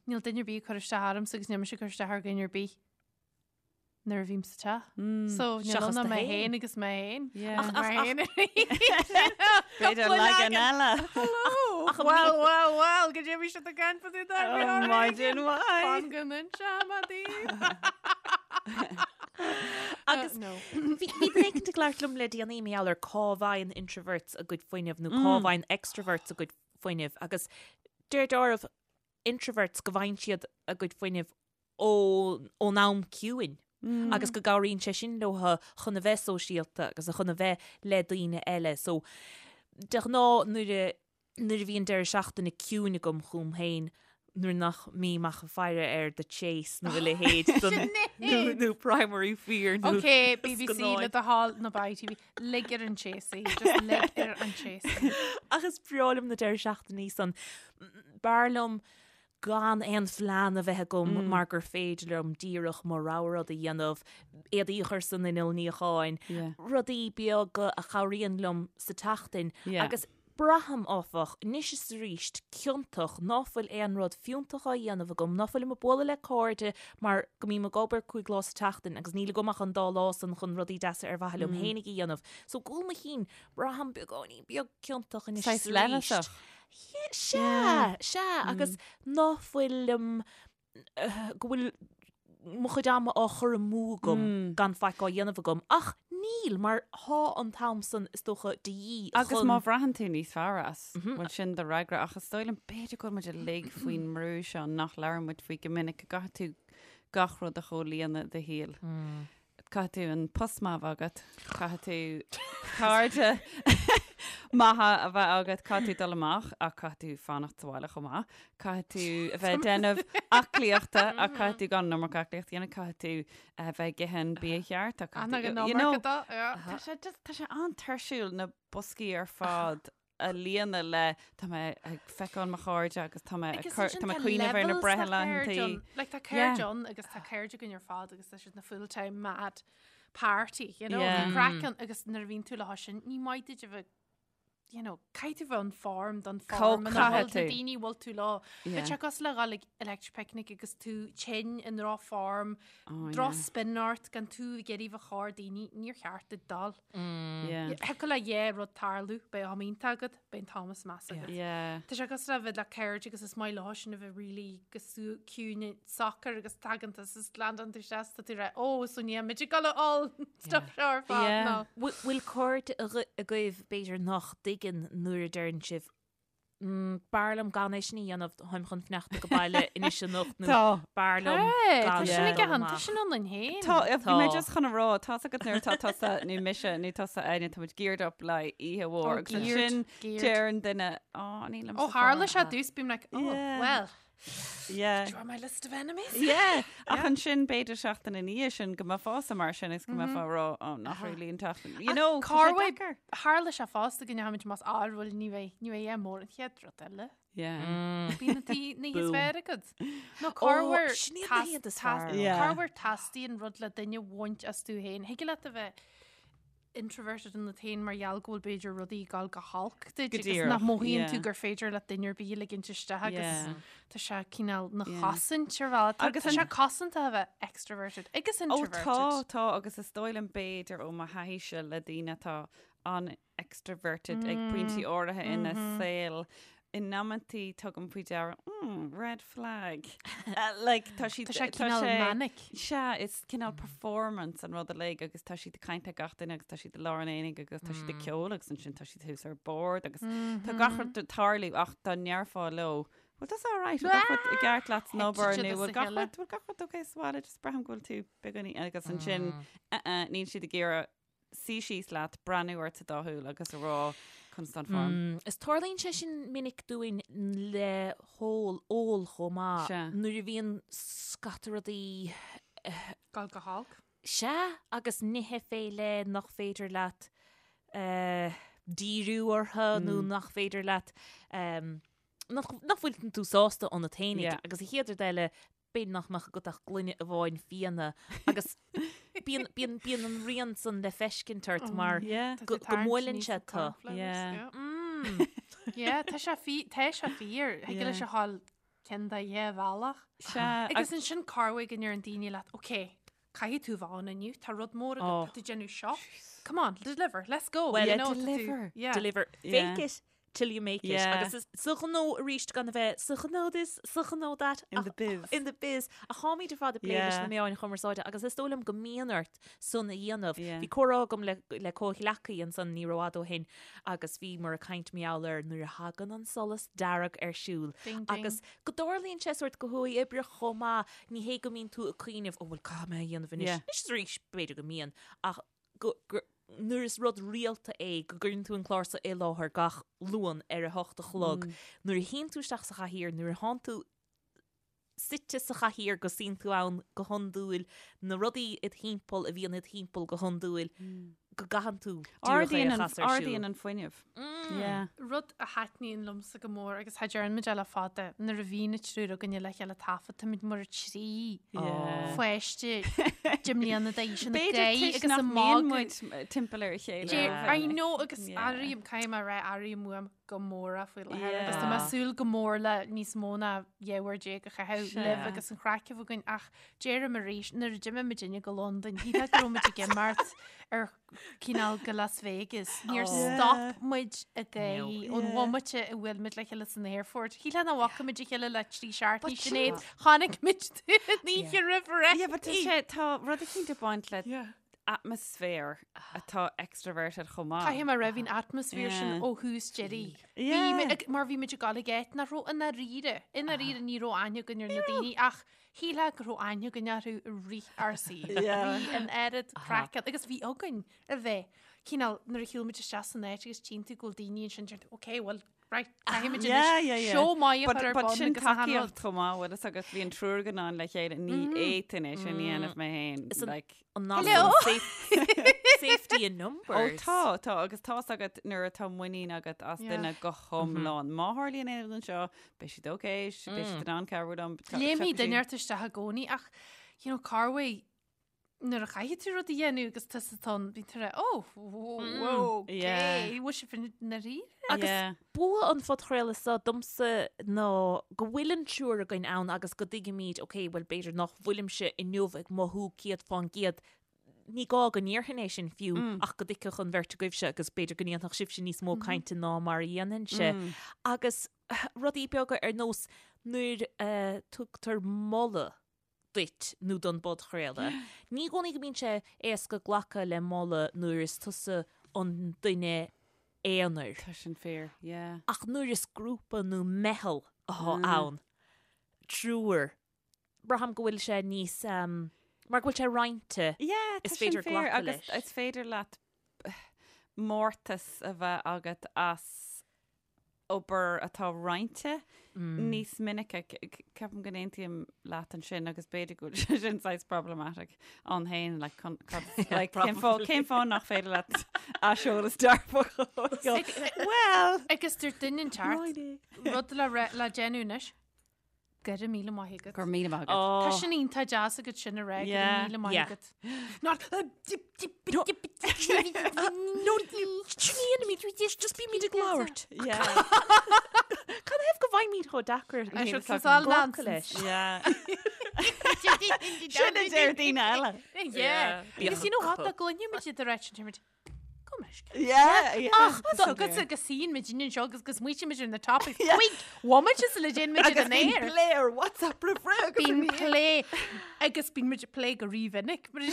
níl duine ar bith ag cur isteach ormsa agus níl mise ag cur isteach ar dhuine ar bith nuair a bhím sa teach. So níl Seachas ann ach tú mé féin. féin agus mé féin. Yeah. Ach mé féin B'fhéidir leagan eile. Ach an Well, well, well, go dtí bhí siad ag caint fá dtaobh Oh, maidin mhaith. Fan go n-inseoidh mé daoibh. Agus no. bhí bhí duine éicint ag labhairt liom le déanaí mar gheall ar cá bhfaigheann introverts a gcuid fuinnimh nó cá bhfaigheann extroverts a gcuid fuinnimh agus deir deáramh introverts go bhfaigheann siad a gcuid fuinnimh ó ón am ciúin agus go gcabhraíonn sé sin leo chun a bheith sóisialta agus chun a bheith le daoine eile. So de ghnáth nuair a nuair a bhíonn deireadh seachtaine ciúin agam chugam féin, nuair nach mbím ach ag faire ar The Chase nó a leithéid den nó nó Primary Fear nó Ok, BBC scannáin. le do thoil nó ITV, lig ar an Chase í, just lig ar an Chase í. Ach is breá liom na deireadh seachtainí san. B'fhearr liom gan aon phlean a bheith agam mar gur féidir liom díreach mo rogha rud a dhéanamh, éadaí a chur san inneall níocháin, rudaí beaga a chabhraíonn liom sa tseachtain agus Braithim, áfach, anois is arís, ciontach ná fuil aon rud fiúntach á dhéanamh agam, ná fuilim ag bualadh le cairde mar go mbím ag obair 5 lá sa tseachtain agus níl agam ach an dá lá san chun rudaí deasa ar mhaithe liom fhéinig a dhéanamh. So, i gcúl mo chinn, braithim beagáinín beag ciontach anois is Saghas arís. leithleasach. Sea, sea, agus ná fuilim go bhfuil mo chuid ama á chur amú agam gan faic á dhéanamh agam, ach níl, mar thá an t-am san is dócha de dhíth chun. Agus má bhraitheann tú níos fearr as, bhuel sin do fhreagra, ach is dóigh liom b'fhéidir go bhfuil muid uilig faoin mbrú seo nach labhrann muid faoi go minic, go gcaithfidh tú gach rud a chomhlíonadh i do shaol. Caithfidh tú an post maith a bheith agat, caithfidh tú cairde maithe a bheith agat, caithfidh tú dul amach ach caithfidh tú fanacht sa bhaile chomh maith, caithfidh tú a bheith ag déanamh aclaíochta ach caithfidh tú gan an iomarca aclaíocht a dhéanamh, caithfidh tú a bheith ag ithe an bia cheart ach caithfidh tú, you know, tá sé just, tá sé an-tuirsiúil na boscaí ar fad a líonadh le tá mé ag feiceáil mo chairde agus tá mé ag cur tá mé ag cuimhneamh ar na breithlaethantaí. Like tá cairde ann agus tá cairde againn ar fad agus tá siad na full time mad party, you know, yeah. craic ann agus nuair a bhíonn tú leo sin ní maith duit a bheith you know, caithfidh tú bheith in form don form ina bhfuil na daoine bhfuil tú leo. Bheadh sé cosúil le dhul ag electric picnic agus tú tinn i ndrochfhorm, oh, drochspin ort gan tú ag iarraidh bheith chomhair daoine, níor cheart duit dul. Thiocfadh le dhá rud tarlú, beidh am iontach agat, beidh an t-am is measa agat. Tá sé cosúil le bheith le cairde agus is maith leo sin a bheith really go ciúin socair agus tagann tú is landann tú isteach tá tú rá ó so ní muid ag dul a ól stuff seo ar fad nó. Bhfuil cairde agaibh b'fhéidir nach dtuigeann nuair a deireann sibh B'fhearr liom gan é sin a dhéanamh, táim chun fanacht ag baile anois anocht nó b'fhearr liom gan Tá sin ag an, tá sin ionainn féin. Tá, bhí mé just chun a rá, tá's agat nuair atá tusa nó mise nó tusa Áine, tá muid geared up le oíche mhór agus ansin deireann duine, á, nílim Ó tharla sé dtús, bím like, oh, well. Yeah. Do you want my list of enemies? Yeah. Ach ansin b'fhéidir seachtain ina dhiaidh sin go mbeifeása mar sin is go mbeifeá ag rá oh, nach really an tseachtain. You know, tá sé deacair. Tharla sé fosta go ndeachaimid más ábhar ní bheidh ní bheidh é mór an chéad rud eile. Yeah. Bíonn na tí na híos fearr agat. Nó corruair sin iad na hiad is fearr. Yeah. Corruair teastaíonn rud le duine a bhaint as tú féin. Thig leat a bheith introverted ionat féin mar gheall go bhfuil b'fhéidir rudaí ag dul go holc duit Go agus díreach, nach mothaíonn tú yeah. gur féidir le duine ar bith a ligint isteach agus Yeah. tá sé cineál na Yeah. chosaint ar bhealach. Tá Agus tá an- sé cosanta a bheith extroverted agus Ó introverted. tá, tá, agus is dóigh liom b'fhéidir ó mo thaithíse le daoine atá an-extroverted ag pointí áirithe ina saol, in amantaí tugaim faoi deara, mm, red flag. Like, tá siad, Tá sé cineál manic. Sea, is cineál performance an rud uilig agus tá siad ag caint le gach duine agus tá siad i lár an aonaigh agus tá siad ag ceol agus ansin tá siad thuas ar bord agus tá gach rud ag tarlú ach dá ndéarfá leo, bhfuil tusa all right, bhfuil gach rud i gceart leat san obair Thit nó siad as bhfuil a gach chéile. rud, bhfuil gach rud okay sa bhaile, just braithim go bhfuil tú beagáinín agus ansin, uh-uh, níl siad ag iarraidh suí síos leat, breathnú ort sa dá shúil agus a rá conas tá an form. Is tarlaíonn sé sin minic dúinn le hól, ól chomh maith. Sea. Nuair a bhíonn scata rudaí. Dul go holc. Sea, agus nithe fé leith nach féidir leat díriú orthu nó nach féidir leat, nach bhfuil tú sásta ionat féinig. Yeah. Agus an chéad rud eile, b'fhéidir nach mbeadh agat ach gloine amháin fíona agus bíonn, bíonn, bíonn an rian san le feiscint ort mar Yeah. go, go mbuaileann sé tú. Yeah. Mm. Yeah, tá sé fí, tá sé fíor. Thig Yeah. leis a ghabháil ceann de dhá bhealach. Sea, Agus ansin corruair go ndeireann daoine leat, ok, caithfidh tú bheith ann inniu, tá rud mór agat, Oh. tá tú déanamh seo. Come on, deliver, let's go. Well, you yeah, know, tá tú- deliver. Yeah. Deliver. Yeah. Fake it till you make it. Yeah. Agus is sa ghnó arís gan a bheith sa ghnó this, sa ghnó that. In the biz. In the biz. Ach táimid ar fad ag plé leis Yeah. na meáin chumarsáide agus is dóigh liom go mbíonn ort san a dhéanamh. Yeah. Bhí comhrá agam le, le comhghleacaí ansan ní rófhada ó shin agus bhíomar ag caint mar gheall ar nuair a thagann an solas dearg ar siúl. Ding, ding. Agus go dtarlaíonn sé sórt go huathoibríoch chomh maith, ní hé go mbíonn tú ag cuimhneamh, ó bhuel caithfidh mé a dhéanamh anois. Yeah. Anois is arís b'fhéidir go mbíonn ach go, go, nuair is rud rialta é go gcuireann tú an clár seo i láthair gach Luan ar a hocht a chlog, nuair a shuíonn tú isteach sa chathaoir, nuair a thánn tú suite sa chathaoir go suíonn tú ann go hiondúil, na rudaí id thimpeall a bhíonn id thimpeall go hiondúil, go gcaitheann tú díreach é a Ardaíonn an, chas ar siúl. ardaíonn an fuinneamh. Yeah. Rud a thaitníonn liomsa go mór agus cha deireann muid é le fada, nuair a bhíonn an triúr againne le chéile taifead, táimid mar thrí Yeah. pháiste de mbliana d'aois ina B'fhéidir gcroí toisc agus nach a mbíonn magadh. muid timpeall ar a chéile. Deir, ó I mhinic. know agus Yeah. airím, caithfidh mé a rá, airím uaim go mór é faoi láthair agus tá Yeah. mé ag súil go mór le níos mó ná 12 uair a chaitheamh Sea. libh agus an chraic a bheith againn ach deirim arís, nuair a d'imigh muidinne go Londain, shílfeá go raibh muid ag imeacht. Ar cineál go Las Vegas. Níor stop muid ag gáirí ón bhomaite a bhuail muid le chéile san aerfort. Shílfeá nach bhfaca muid a chéile le trí seachtainí Sinéad. Chonaic muid tú an oíche roimh ré. Yeah, but tá sé, tá rud eicínt ag baint le atmaisféar atá extroverted chomh maith. Caithfidh mé a rá bhí an atmaisféar sin ó thús deiridh. Bhí mé ag, mar bhí muid ag dul ag áit nach raibh i ndáiríre, i ndáiríre ní raibh aithne againn ar na daoine ach Shílfeá go raibh aithne againn orthu i rith ár saoil. Bhí an oiread craic ann agus bhí againn a bheith cineál nuair a shiúil muid isteach san áit agus tchíonn tú go bhfuil daoine ansin deir tú ok well right caithfidh muid anois seó maith a chur ar bun agus sin achan rud. tacaíocht chomh maith bhfuil fhios agat bhí an triúr againn ann le chéile ní fhéadfainn é sin a dhéanamh mé féin Is an- like An Hello. Safety in numbers. Ó tá, tá, agus tá's agat nuair atá muinín agat as Yeah. duine go hiomlán. Má tharlaíonn aon rud anseo, beidh siad ok, beidh siad in ann cabhrú liom. Léimfidh duine ort isteach i gcónaí ach, you know, corruair nuair a chaithfidh tú rud a dhéanamh agus tusa atá ann, bíonn tú ag rá, oh, whoa, ok, Yeah. bhfuil sibh i ndáiríre? Agus Yeah. bua an phodchraoladh seo domsa ná go bhfuil an triúr againn ann agus go dtuigimid, ok, bhuel b'fhéidir nach bhfuilimse inniu ag mothú 100%, ní gá go ndéarfainn é sin fiú ach go dtuigfeadh an bheirt agaibhse agus b'fhéidir go ndéanfadh sibhse níos mó cainte ná mar a dhéanfainnse. Agus rudaí beaga ar nós nuair a tugtar moladh duit nó don bpodchraoladh. Ní i gcónaí go mbíonn sé éasca glacadh le moladh nuair is tusa an duine aonair. Tá sin fíor, yeah. Ach nuair is grúpa nó meitheal atá ann, triúr, braithim go bhfuil sé níos, mar go bhfuil sé roinnte, Yeah, tá is sin féidir fíor glacadh agus leis. is féidir leat mórtas a bheith agat as obair atá roinnte níos minice. Ceapaim go n-aontaím leat ansin agus b'fhéidir go bhfuil sé sin saghas problematic ann féin, like, cun- cad- like, cén fáth cén fáth nach féidir leat aiseolas dearfach a fháil? Well, Agus dúirt duine inteacht rud le re- le déanamh anois. Go raibh míle maith agat. Go raibh míle maith agat. Tá sin iontach deas agat sin a rá, go raibh míle maith agat. Not No, just bímid ag labhairt. Cad ina thaobh go bhfaighimid chomh deacair glacadh leis? Sin a deir daoine eile. Yeah. Because you know what, dá gcluinfeadh muid iad ag rá sin, muid, Go meisce. Yeah, yeah. Ach, tá agatsa go suíonn muid anseo agus go smaoitíonn muid ar na topics. Cúig bhomaite sula dtéann muid ar Agus an bíonn aer. plé ar WhatsApp roimh ré agus Bíonn ina dhiaidh. plé agus bíonn muid ag plé go rímhinic. Mar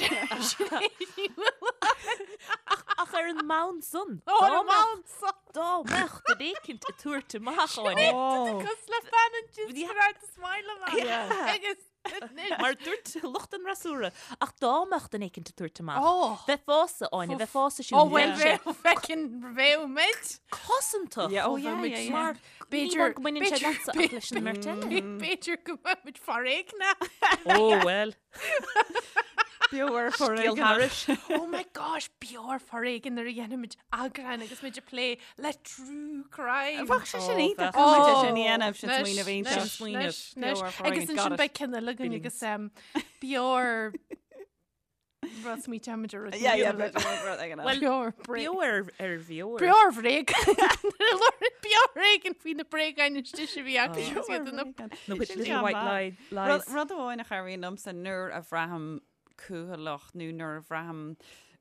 Ach ar an mbonn san. Ó, ar an mbonn san. Dá mbeadh duine éicint ag tabhairt amach Áine. Cos le fan an just smile amach. Agus Mar dúirt lucht an fhreasúra, ach dá mbeadh duine éicint ag tabhairt amach, Oh. bheifeása, Áine, bheifeása siúd. Ó bhuel, bheadh, feicinn, bheadh muid. Cosantach. Yeah, oh yeah, yeah, yeah. Mar B'fhéidir- ní go mbaineann sé b'fhéidir- leatsa ach leis an mbeirt eile. B'fhéidir go mbeadh muid foréigneach. Ó bhuel. Beo ar Scéal foréigean. thairis. Oh my gosh, beo ar foréigean nuair a dhéanaimid eagrán agus muid ag plé le true crime. Bheadh sé sin Oh, iontach. bheadh. Caithfidh muid é sin a dhéanamh, sin Anois, smaoineamh iontach. anois, Sin smaoineamh. anois, anois. Beo ar foréigean, Agus ansin got it. beidh ceann eile againn agus um, beo ar rud smaointeoimid ar rud. Yeah, yeah, beidh rud éigin eile. Well, Beo ar bréag. Beo ar ar bheo ar. Beo ar bhréag. Beo ar éigean faoi na bréagáin istigh a bhí acu Beo agus ar iad ina bhréagáin. No, with Sin little ceann white maith. lie, lies. Rud rud amháin a chabhraíonn liomsa nuair a bhraithim cúthaileach nó nuair a bhraithim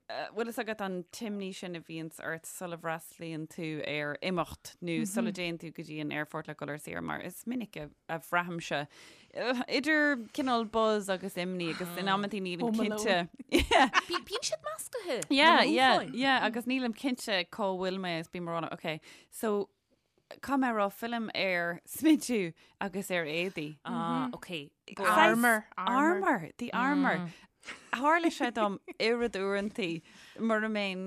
bhfuil fhios agat an t-imní sin a bhíonns ort sula bhfreastlaíonn tú ar imeacht nó sula dtéann tú go dtí an aerfort le dul ar saoire mar is minic a, a bhraithimse idir cineál buzz agus imní agus in amantaí nílim Home Alone. cinnte. Yeah. Bí- Bíonn siad meascaithe. Yeah, na yeah, mothúcháin. yeah, agus nílim cinnte cá bhfuil mé is bím ag rá, okay, so Caithfidh mé a rá fillim ar smidiú agus ar éadaí. Ah, ok. Saghas Armour, armour. Armour, the armour. Tharla sé dom oiread uaireantaí mura mbeinn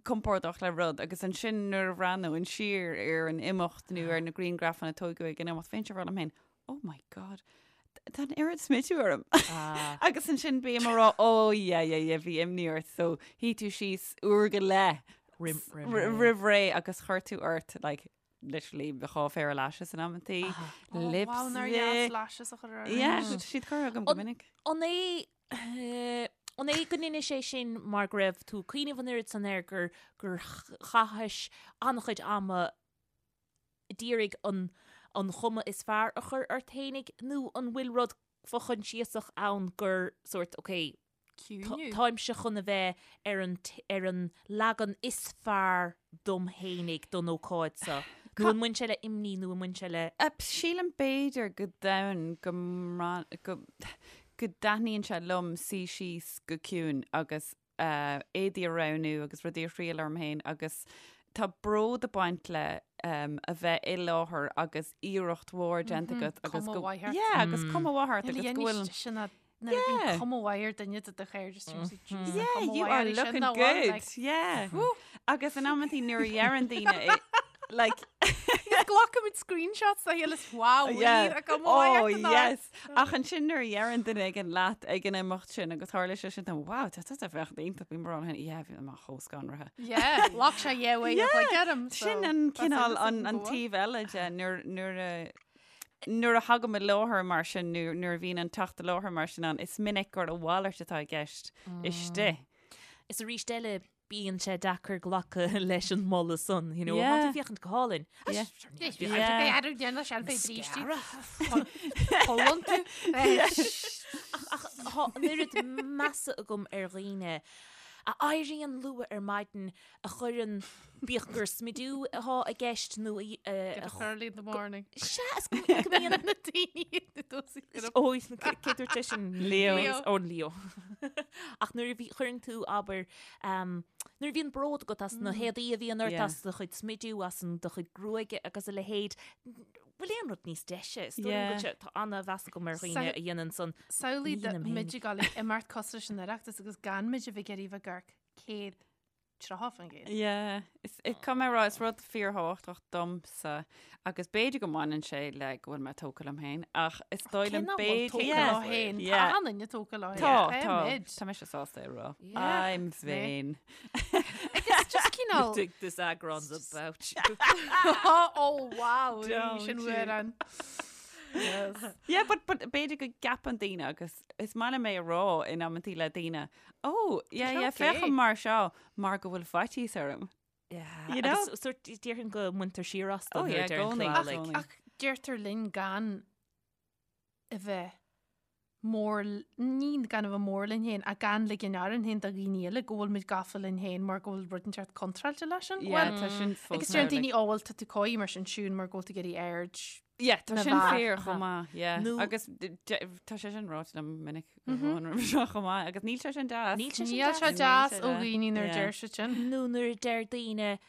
compordach le rud agus ansin nuair a bhreathnóinn siar ar an imeacht nó ar na grianghrafanna a tógadh ag an imeacht, bheinnse ag rá liom féin, oh my God, tá an oiread smidiú orm. Agus ansin bím ag rá, oh yeah, yeah, yeah, bhí imní ort, so shuigh tú síos uair go leith roimh ré agus chuir tú ort, like, literally dhá phéire lashes in amantaí, Oh, wow, nár dheas lashes a chur orm. Yeah, siad curtha agam go minic. An é an é go ndeinis é sin mar go raibh tú ag cuimhneamh an oiread san air gur gur chaithis an-chuid ama d'iarraidh an an chuma is fearr a chur ort fhéinig nó an bhfuil rud fo-choinsiasach ann gur sórt ok. Ciúiniú. Táimse chun a bheith ar an ar an leagan is fearr dom fhéinig don ócáid seo. Nó an mbaineann sé le imní nó an mbaineann sé le. Sílim b'fhéidir go domhain go go go dtaitníonn sé liom suí síos go ciúin agus éadaí a roghnú agus rudaí a thriail orm féin agus tá bród ag baint le a bheith i láthair agus iarracht mhór déanta agat agus Cuma mhaith ort. Yeah, agus cuma mhaith ort agus go bhfuil sin Nuair a bhíonn cuma mhaith ar duine de do chairde Yeah, you are looking good. Yeah. Agus in amantaí nuair a dheireann daoine like Glacaimid screenshots dá chéile is wow, Yeah. a cuma mhaith Oh, ort an yes. Ach ansin nuair a dheireann duine éigin leat ag an imeacht sin agus tharla sé sin dom, wow, tá tusa ag féachaint iontach bím ag rá liom féin, yeah, bhí mé chomh scanraithe. Yeah, ghlac sé yeah way Yeah, like orm. Sin an cineál an an taobh eile de nuair nuair a nuair a thagaim i láthair mar sin nó nuair a bhíonn an teacht i láthair mar sin ann, is minic gur a mhalairt atá i gceist istigh. Is arís eile bíonn sé deacair glacadh leis an moladh san, you know, Yeah. tá tú ag féachaint go hálainn. Yeah. Yeah. Cholann tú. Ach tá an oiread measa agam ar dhaoine a éiríonn luath ar maidin a chuireann, bíodh gur smidiú atá i gceist nó a. Get up early in the morning. Sea, is go mbíonn na daoine na dtosaí. Ó, cé dúirt sé sin? Leo. Leo. Ó, Leo. Ach nuair a bhí, chuireann tú, abair, nuair a bhíonn bród agat as na héadaí a bhíonn ort, Yeah. as do chuid smidiú, as an do chuid gruaige agus a leithéid, bhfuil aon rud níos deise? Is dóigh liom go Yeah. bhfuil sé, tá ana-mheas agam ar dhaoine a dhéanann san. Samhlaigh Ní dhéanaim féin. muid ag dul ag imeacht cosúil leis an Oireachtas agus gan muid a bheith ag iarraidh bheith ag amharc 130%. Yeah, is caithfidh mé a rá, is rud fíorthábhachtach domsa agus b'fhéidir go mbaineann sé le go bhfuil mé tógtha liom féin ach is dóigh liom b'fhéidir b'fhéidir yeah. leo féin. Tá Yeah. an duine tógtha leo Tá, féin. tá, Muid. tá mise sásta é a rá. Yeah, I'm it's me. vain. Agus just cineál Think this eagrán's about you. oh wow, Don't sin you. uair an. Yes. Yeah, but, but b'fhéidir go gceapann daoine agus is maith liom é a rá in amantaí le daoine, oh, yeah, yeah, okay. féachaim mar seo mar go bhfuil faitíos orm. Yeah. You know? Agus sort déarfainn go mbaintear siar astu Oh, nuair yeah, a deireann tú gcónaí. é, Ach- like. Ach deirtear linn gan a bheith mór, ní gan a bheith mór linn féin, ach gan ligean orainn féin do dhaoine eile go bhfuil muid gafa linn féin mar go bhfuil rud inteacht contráilte leis sin. Yeah, Bhuel, tá sin fós agus deireann mar, like- daoine, ó bhuel, tá tú coy mar sin siún mar go bhfuil tú ag iarraidh aird Yeah, tá na sin bhfear. fíor chomh maith, yeah. Nó- Agus d- d- tá sé sin ráite liom minic go mm roimhe seo chomh maith, agus níl sé sin deas. Níl sé sin Níl sé Níl deas sé ó deas. dhaoine nuair a Yeah. deir siad sin. Nó nuair a deir daoine,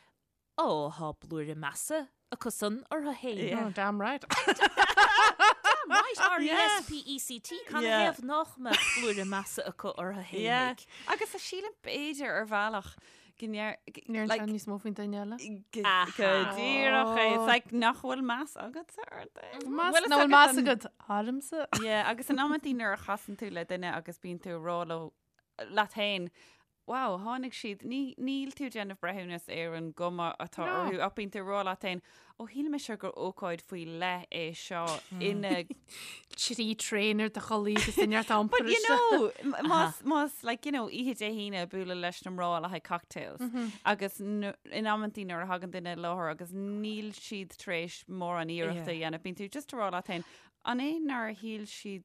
ó, tá blúire measa acu san orthu féin. Yeah. Oh, damn right. Damn right, R-E-S-P-E-C-T, can Yeah. thaobh nach mbeadh blúire measa acu orthu Yeah. féinig. Agus a sílim b'fhéidir ar bhealach go ndeir- g- Níor like, an níos mó faoin duine eile. go Aha. go díreach é. It's like nach bhfuil meas agatsa ort é. Meas Bhfuil nach fhios bhfuil meas an- agat ormsa. Yeah, agus in amantaí nuair a chasann tú le duine agus bíonn tú ag rá leo leat féin, wow, tháinig siad, ní, níl tú ag déanamh breithiúnas ar an gcuma atá No. orthu, ach bíonn tú ag rá leat féin, ó shíl mise gur ócáid faoi leith é seo ina Trí traein ar do chulaith agus duine ar iompar But you know, m- más, más, like, you know, oíche Dé hAoine bualadh leis na mná le haghaidh cocktails. Agus nu- in amantaí nuair a thagann duine i láthair agus níl siad tar éis mórán iarrachta a dhéanamh, bíonn tú just ag rá leat féin, an é nár shíl siad,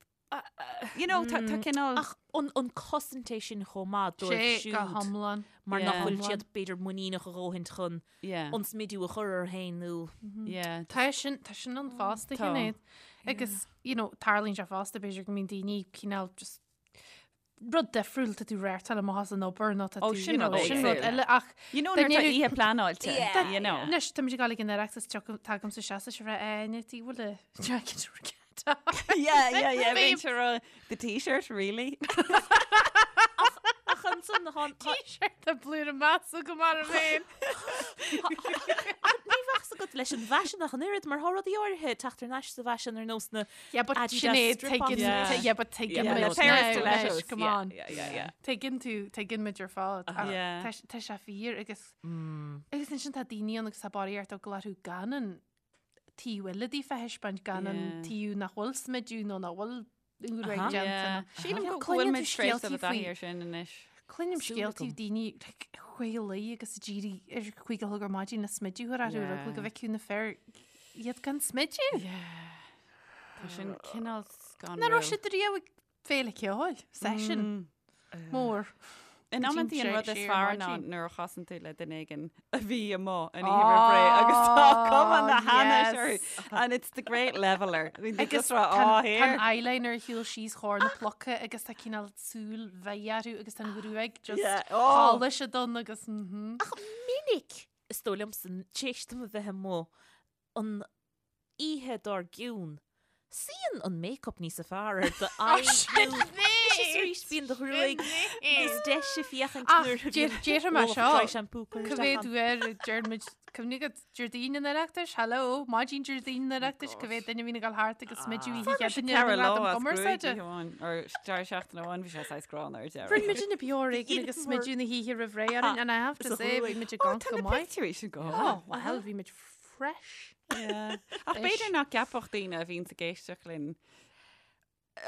you know, tá tá cineál... Ach an, an cosaint é sin chomh maith dóibh Sé go siúd hiomlán. mar nach Yeah. bhfuil siad b'fhéidir muiníneach a dhóthaint chun Yeah, an smidiú a chur orthu féin nó yeah. Tá sin tá sin ann fosta Tá. Sinéad. Agus you know, tarlaíonn sé fosta b'fhéidir go mbíonn daoine cineál just rud difriúil tá tú réirteáil amach as an obair nó tá Ó, tú, sin you know, rud sin rud éagsúil. eile ach You know, Dá nuair tá ndéanfaidh- oíche pleanáilte, Yeah. you know. Anois tá muid ag dul ag an Oireachtas tagaim sa seasa se bheith aine tí bhfuil a jacket Yeah, yeah, yeah. Babe. Bíonn sé rá, the t-shirt, really? Ach ansan há T-shirt a blúire measa go mar a féin. ní bheadh agat leis an bhfaisean ach an oiread mar tá rudaí áirithe teacht thar n-ais sa bhfaisean ar nós na Yeah, but Adidas Sinéad strip-ons. tuigeann Yeah. yeah, but tuigeann Yeah, muid the pair of now, stilettos. anois, come Yeah, on. Yeah, yeah, yeah. Tuigeann tú, tuigeann muid ar fad. Ach Yeah. Tá tá sé fíor agus agus ansin tá daoine ann agus tá barraíocht eagla orthu gan an taobh eile díofa a thaispeáint gan an Yeah. taobh nach bhfuil smidiú nó nach bhfuil úr Aha. déanta. Yeah. Sílim Yeah, go bhfuil cluineann tú muid tar éis dul scéaltaí i dtaithí faoi- ar sin anois. Cluinim Súil scéaltaí agam. daoine like, chuig agus ag éirí ar chuig a chlog ar maidin le smidiú a chur orthu Yeah. go bhfeicfeadh na fir iad gan smidiú. Tá sin cineál scanrúil. Nach raibh siad riamh ag féile ceoil, session. Mór. In amantaí an rud is Siar fearr ná maidin. nuair a chasann tú le duine éigin a bhí amuigh an oíche roimh ré agus tá cuma na hainnis orthu. And it's the great leveler. I mean, they Agus just rá, tá "Á, an here." eyeliner ar shiúl síos chomhair na pluca agus tá cineál súil mheidh orthu agus tá an ghruaig just Yeah. Oh. polished done agus mhm. Ach minic, is dóigh liomsa, tar éis dom a bheith amuigh an oíche dár gcionn, suíonn an make-up níos fearr ar do aghaidh nó is arís bíonn do ghruaig níos deise féachaint Ach nuair a bhíonn déarfaidh mé ualach seo, dry shampoo curtha Cá isteach mhéad ann. uair a deir muid, cuimhnigh agat, Déardaoin an Oireachtais, hello, maidin Déardaoin an Oireachtais, cá mhéad duine a bhíonn ag dul thart agus smideadh oíche Fuair mise Chéadaoine ar ceithre an lá ngradam as gruaig cumarsáide. oíche amháin, or deireadh seachtaine amháin, bhí sé saghas gránna ar deireadh. Rinne muid na beo ar éigean agus smideadh na hoíche roimh ré orainn and I have to Sa say, bhí ghruaig. muid ag amharc Tá go na maith. pictiúirí sin go Oh, well, bhí muid fresh. Yeah. Ach b'fhéidir nach gceapfadh daoine a bhíonn ag éisteacht linn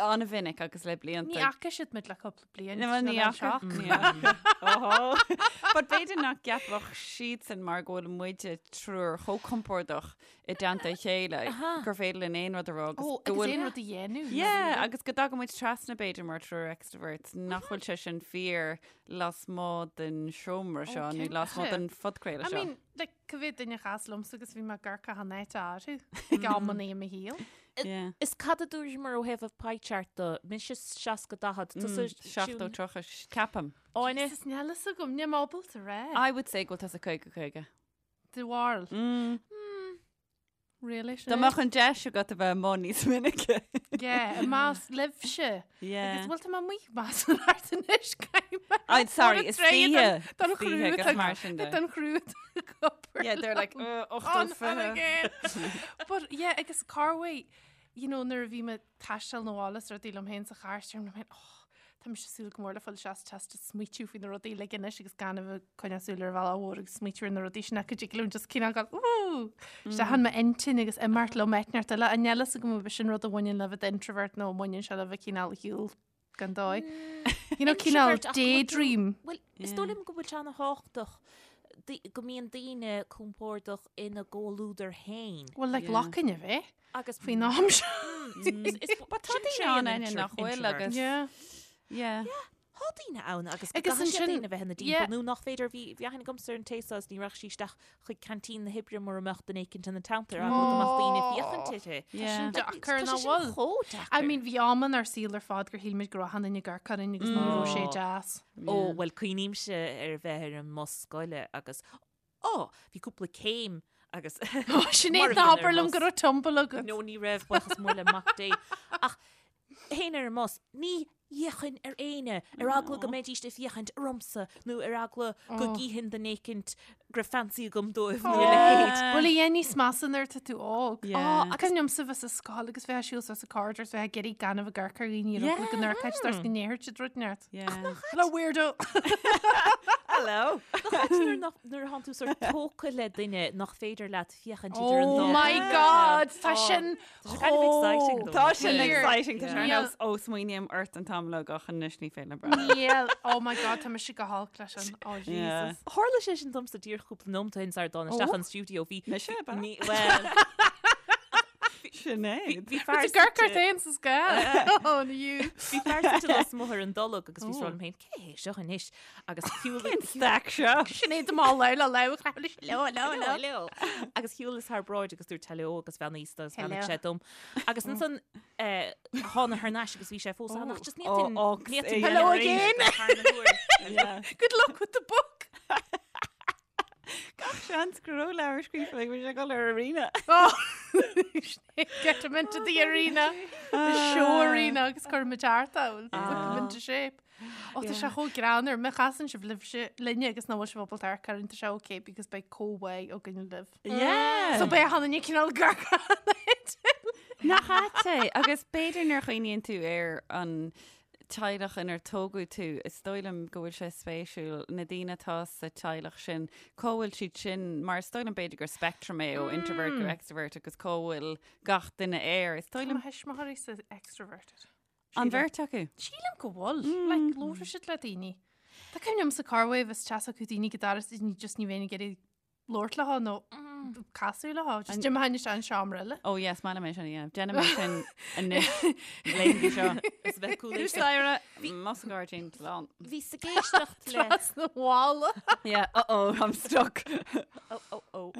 an-mhinic agus le blianta. Ní fhaca siad muid le cúpla bliain. Ní ní fhaca. Ní fhaca. Ohó. But b'fhéidir nach gceapfadh siadsan mar go bhfuil muide triúr chomh compordach i dteannta a chéile gur féidir linn aon rud a rá agus Ó, go agus bhfuil aon rud a dhéanamh. Yeah, agus go dtagann muid trasna b'fhéidir mar triúr extroverts nach bhfuil sé sin fíor lasmuigh den seomra seo nó lasmuigh den phodchraoladh I seo. mean, like, cá mhéad duine a chas liomsa agus bhí mé ag amharc achan áit orthu ag amanna i mo shaol. Yeah. Is cad a dúramar ó thaobh an pie chart de, mise 60 40, tusa 70 30, ceapaim. Áine? Jesus, níl fhios agam, níl mé ábalta rá. I would say go bhfuil tusa 50 50. Do bharúil. Really, Dá mbeadh an deis agat a bheith amuigh níos minice. Yeah, i measc libhse. Yeah. Agus bhfuil tá mé amuigh más an art anois caithfidh mé. I'm sorry, is oíche. Don Is oíche agus mar sin de. Don chriú copper. Yeah, they're like, uh, On, 80 on again. But yeah, agus Carway, you know, nuair a bhí mé ag taisteal na bhaile is rudaí liom féin sa charr, deirim liom féin, oh, Tá mise ag súil go mór le fáil isteach sa teach is smaoitiú faoi na rudaí uilig anois agus gan a bheith ag coinneáil súil ar an bhealach mhór agus smaoitiú ar na rudaí sin ach go dtig liom just cineál gabháil ooh isteach in m'intinn agus imeacht liom áit inteacht eile. An níl fhios agam ab sin rud a bhaineann le bheith introvert nó an mbaineann sé le bheith cineál ar shiúl gan dóigh. You know, cineál Introvert, ach go bhfuil tú- daydream. Bhuel, is dóigh liom go bhfuil sé ana-thábhachtach go mbíonn daoine compordach ina gcomhluadar féin. Well, like Yeah. locainn a bheith Agus faoin am seo. But tá daoine ann aine nach bhfuil agus- Yeah. Yeah. Tá daoine ann agus go Agus gcaithfidh siad ansin- daoine a bheith ina yeah. dtimpeall nó nach féidir bhí bhí aithne agamsa ar an té seo is ní raghadh sí isteach chuig canteen na hoibre mura mbeadh duine éicint ina teannta ar eagla go mbeadh daoine ag féachaint uirthi. Yeah. Sin deacair Tá nach sé sin bhfuil. chomh deacair. I mean, bhí am inár saol ar fad gur shíl muid go raibh achan duine ag amharc orainn agus ní raibh sé deas. Ó, bhuel, cuimhnímse ar bheith ar an mbus scoile agus, ó, bhí cúpla céim agus Sinéad mar a ná bhíonn ar habair an liom mbus. go raibh tumble agat. No, ní raibh, buíochas mór le Mac Dé. Ach théinn ar an mbus, ní fhéachfainn ar éinne, ar eagla go mbeidís ag féachaint ormsa nó ar eagla go gcífinn duine éicint go raibh fancy agam dóibh nó a leithéid. Bhuel, a dhéan níos measa nuair atá tú óg. Yeah. Ach cuimhin liomsa bheith sa scoil agus bheith ag siúl suas an corridor is bheith ag iarraidh gan a bheith ag amharc ar dhaoine ar eagla go n-amharcfaidh siad ort go ndéarfadh siad rud inteacht. Yeah. Hello, weirdo! Hello. Nach ait nuair nach- nuair atánn tú sort tógtha le duine nach féidir leat féachaint idir an Oh dá my God! Tá sin Tá sé kind of exciting though. Tá sin Weird. exciting Tá sé ar Yeah. nós ó smaoiním ort an t-am uilig ach anois ní féidir liom breathnú. Níl. Oh my God, tá mise go holc leis sin. Oh Yeah. Jesus. Tharla sé sin domsa díreach cúpla nóiméad ó shin sar dtána isteach Oh. an stiúideo bhí Mise, ab ea? Ní- well, Sinéad. bhí fear Tá gurc suite- féin sa scoil. Oh, you. Bhí fear suite lasmuigh ar an dtolg agus bhí ag rá liom féin cé hé seo anois agus shiúil Cén stack seo? Sinéad am all le le le le le le. Hello. Agus shiúlas thar bráid agus dúirt hello agus bheannaíos dó agus bheannaigh Hello. sé dom. Agus ansan eh, thána thar n-ais agus bhí sé fós ann ach just ní Oh, ox, eh, Hello again. Yeah. Good luck with the book. Gach seans go raibh leabhar scríofa ag bhí sé dul ar arena. Oh. Get him into the arena. The show arena agus cuir muid thart ann. Whip him into shape. Ó tá sé chomh greannmhar má chasann sibh libhse linne agus nach bhfuil sibh ábalta amharc orainn tá sé okay because beidh comhbhá againn libh. Yeah. So beidh achan duine cineál ag amharc Nach ait é agus b'fhéidir nuair a chuimhníonn tú ar an teaghlach inar tógadh tú, is dóigh liom go bhfuil sé spéisiúil na daoine atá sa teaghlach sin, cá bhfuil siad sin, mar is dóigh liom b'fhéidir gur spectrum é ó introvert go extrovert agus cá bhfuil gach duine air. Is dóigh Tá liom mo thuismitheoirí sa extroverted. an bheirt acu. Sílim go bhfuil. Like, labhrann siad le daoine. Tá cuimhne liom sa carwave is teas acu daoine go dara is just ní bheinn ag iarraidh labhairt leo nó Casadh leo, just d'imtheoinn isteach an seomra eile. Oh yes, maith liom é sin a dhéanamh. Déanaim é sin anois, laethanta seo. Is bheith cúl Tús staighre, mo sa ghairdín, slán. Bhíos ag éisteacht le. Trasna bhalla. Yeah, uh-oh, I'm stuck. Oh, oh, oh.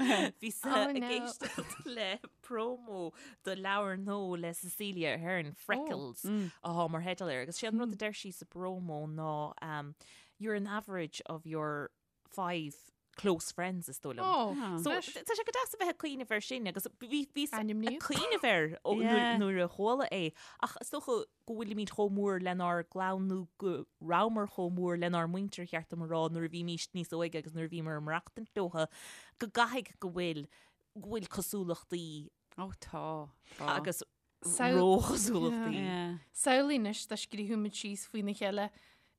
Bhíos Oh, ag no. éisteacht le promo do leabhar nua le Cecelia Ahern, Freckles, atá mar theideal air. Agus sé an rud a deir sí sa promo ná um, you're an average of your 5 close friends is dóigh liom. Oh, So anois. tá sé go deas a bheith ag cuimhneamh air sin agus bhí bhíos ag Ainmníodh. cuimhneamh air ó Yeah. nuair nuair a chuala é ach is dócha go bhfuilimid chomh mór lenár gclann nó go rabhamar chomh mór lenár muintir cheart dom a rá nuair a bhímís níos óige agus nuair a bhíomar ag maireachtaint leotha go gcaithfidh go bhfuil go bhfuil cosúlachtaí Ó tá, tá. agus Samh- róchosúlachtaí. Yeah. Samhlaigh anois dá scríobhadh muid síos faoina chéile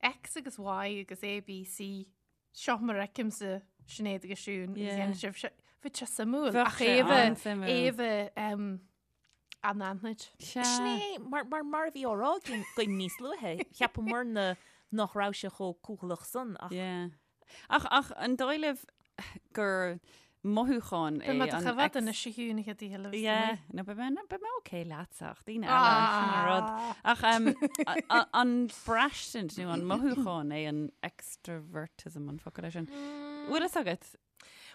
X agus Y agus A, B, C, seo mar a fheicimse Sinéad agus Siún agus Yeah. dhéanann sibh seo. Bheadh sé suimiúil Bheadh ach sé é a bheith an-suimiúil. é a bheith um, anaithnid. Sea. Sin é, mar, mar, mar a bhí á rá againn againn níos luaithe, cheapamarna nach raibh sé chomh cúthaileach san ach Yeah. Ach, ach an dóigh libh gur mothúchán é Beidh mé do an choimhéad ex- anois a Shiún, a chéad oíche eile bheas Yeah, tú no, beidh mé, beidh mé okay leatsa ach daoine eile, sin an rud. Ah. Ach um, a- a- an braistint nó an mothúchán é an extrovertism an focal é sin. Bhfuil fhios agat?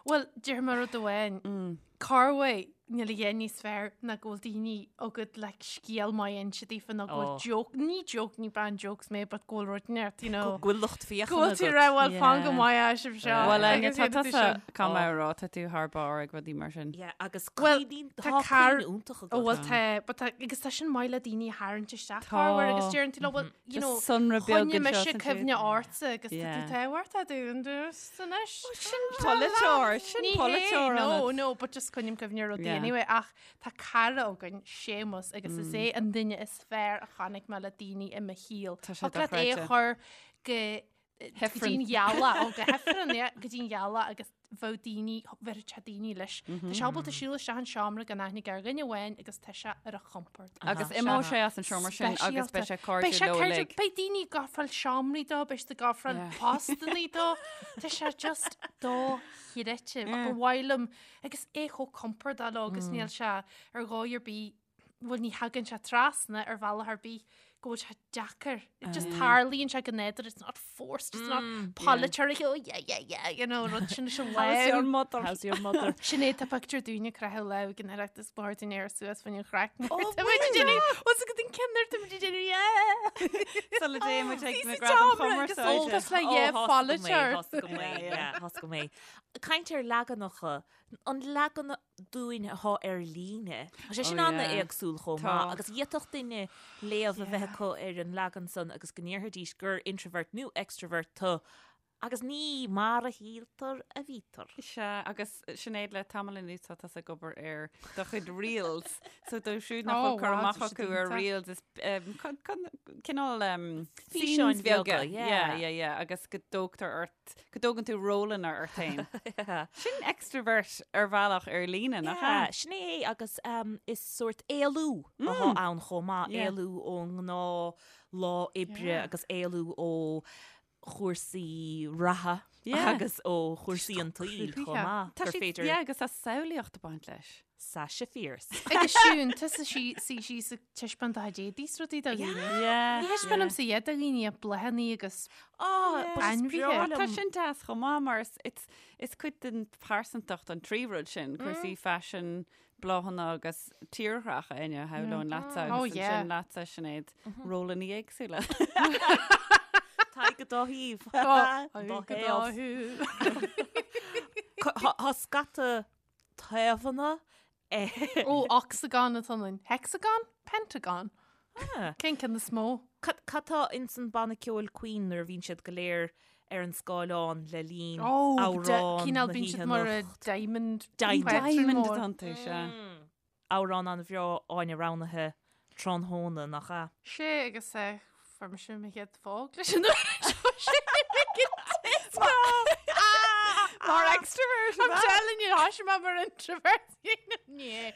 Bhuel, déarfaidh mé rud amháin. Corruair níl a dhath níos fearr ná go bhfuil daoine agat le scéal maith a inse daofa nó go bhfuil Oh. joke, ní joke, ní bean jokes mé, but go bhfuil rud inteacht, you know. go bhfuil lucht féachana Go bhfuil tú agat. rá, bhuel, fan go Yeah. maith é sibh seo. Bhuel, Áine, Agus tá dhéanfaidh tú tusa sin. caithfidh mé a rá, tá tú thar barr ag rudaí mar sin. Yeah, agus Bhuel, cuimhníonn tá tá car- cuimhne iontach Ó, agat. bhuel, tá, but tá, agus tá sin maith le daoine a tharraingt isteach Tá. corruair agus deireann tú leo, bhuel, you know, Just sonra beag choinnigh anseo mise is ansiúd. cuimhne ortsa agus tá tú Yeah. tábhachtach dúinn anois. Sin polaiteoir, sin Ní hé, polaiteoir no, ionat. no, but just coinním cuimhne ar rudaí Yeah. anyway, ach tá cara againn, Séamus, agus is é an duine is fearr a chonaic mé le daoine i mo shaol. Tá sé Thig leat é a dochreidte. chur go go Hifreann. dtí'n ghealach, ó go hifreann, yeah, go dtí'n ghealach agus bheadh daoine, bheadh sé daoine leis. Tá sé ábalta siúl isteach an seomra gan aithne ar dhuine amháin agus tá sé ar a chompord. Agus imeoidh sé as an seomra sin agus beidh sé Beidh sé cairdiúil leo cairdiúil, uilig. beidh daoine ag ofráil seomraí dó, beidh siad ag ofráil Yeah. postannaí dó. Tá sé just dochreidte. Ach ba mhaith liom, agus é chomh compordach leo agus níl sé ar dhóigh ar bith, bhuel ní thagann sé trasna ar bhealach ar bith go bhfuil sé deacair. It just tarlaíonn sé go nádúrtha, it's not forced, it's not polaiteoir, oh yeah, yeah, yeah, you know, rud sin is an How's your lámh. mother? How's your mother? Sinéad tá pictiúr dúinne ag croitheadh lámh ag an Oireachtas ba chóir dúinn éirí suas faoin chraic. Oh, Tá muid ag déanamh, what's a good thing cinn tá muid ag déanamh, yeah. Sula dtéann muid ag na Bhí sa Gradaim tseomra agus Chumarsáide. Tá le yeah, polaiteoir. Thosaigh go mé, yeah, thosaigh go mé. Caint ar leaganacha, an leagan dúinn atá ar líne. Tá sé sin Oh, ana yeah. éagsúil chomh Tá. maith agus d'fhéadfadh duine léamh a bheith acu ar an leagan san agus go ndéarfaidís gur introvert nó extrovert tú agus ní mar a shíltear a bhítear. Sea, agus Sinéad le tamall anuas tá tusa ag obair ar do chuid reels. So dóibh siúd nach Oh, bhfuil cur wow, amach tá siad acu ar iontach. reels is um, cineál um, Físeáin scenes beaga. bheaga, yeah. Yeah, yeah, yeah. Agus go dtógtar ort, go dtógann tú rólanna ort féin. Sin extrovert ar bhealach ar líne, nach Yeah, ea? sin é agus um, is sórt éalú atá ann chomh maith, Yeah. éalú ón ngnáth lá oibre Yeah. agus éalú ó chúrsaí reatha Yeah. agus ó chúrsaí an tsaoil chomh cruthaithe. maith Tá gur siad, féidir yeah, agus tá samhlaíocht ag baint leis. Sasha Fierce. Agus Siún, tusa sí sí sí sa taispeáint do chuid éadaí is rudaí do dhaoine. Yeah. Ní thaispeánaimse iad do dhaoine ach bláthanna agus Ah, but is Ainmhithe. breá Tá liom- sin deas chomh maith mar is, it's, is cuid den phearsantacht an trí rud sin, cúrsaí faisin, bláthanna agus tírdhreach Áine shamhlóinn leatsa Oh, agus yeah. ansin leatsa Sinéad rólanna éagsúla. Tá go dá thaobh. Dá Dá thaobh. Tá scata taobhanna eh, Ó, ocsagon atá ann. Hexagon? Pentagon? Ah. Cén ceann is mó? Cad cad tá ins an banna ceoil Queen nuair a bhíonn siad go léir ar an scáileán le linn Ó, amhrán cineál na bíonn siad hoíche mar a anocht. diamond. Diamond. pattern Diamond mór. atá iontu, sea. Amhrán an-bhreá Áine roghnaithe tráthnóna nach ea? Sé agus eh, fuair mise mo chéad phóg leis an uair seo sé Mar Extrovert. I'm telling you, tá mé mar introvert.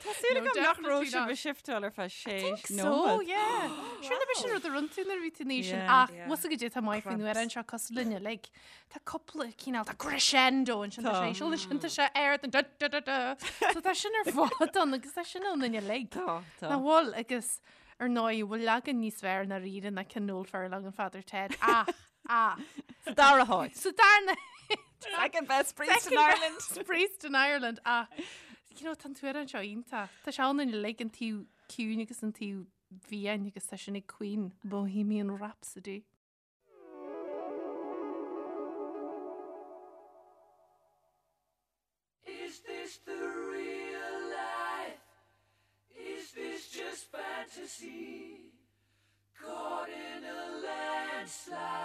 Tá súil agam nach raibh sibh ag shiftáil ar feadh sé So, nóiméad. yeah. Sure na sin rud a rinne tú nuair a bhí tú in aois sin Yeah. ach bhfuil a fhios agat tá maith faoin amhrán seo cosúil linn uilig. Tá cúpla cineál, tá crescendo ansin tá sé íseal ansin tá sé ard an da da da da. So tá sin ar fad ann agus tá sin ann uilig. Tá, tá. Nach bhfuil agus ar ndóigh bhfuil leagan níos fearr ná ríre ná cionn Noel Furlong an Father Ted ach ach Sa dara háit. sa darna Second best priest in Second Ireland. best priest in Ireland ach you know, tá an t-amhrán seo iontach. Tá sé ann uilig an taobh ciúin agus an taobh fiáin agus tá sin ag Queen Bohemian Rhapsody. Is this the real life? Is this just fantasy? Caught in a landslide.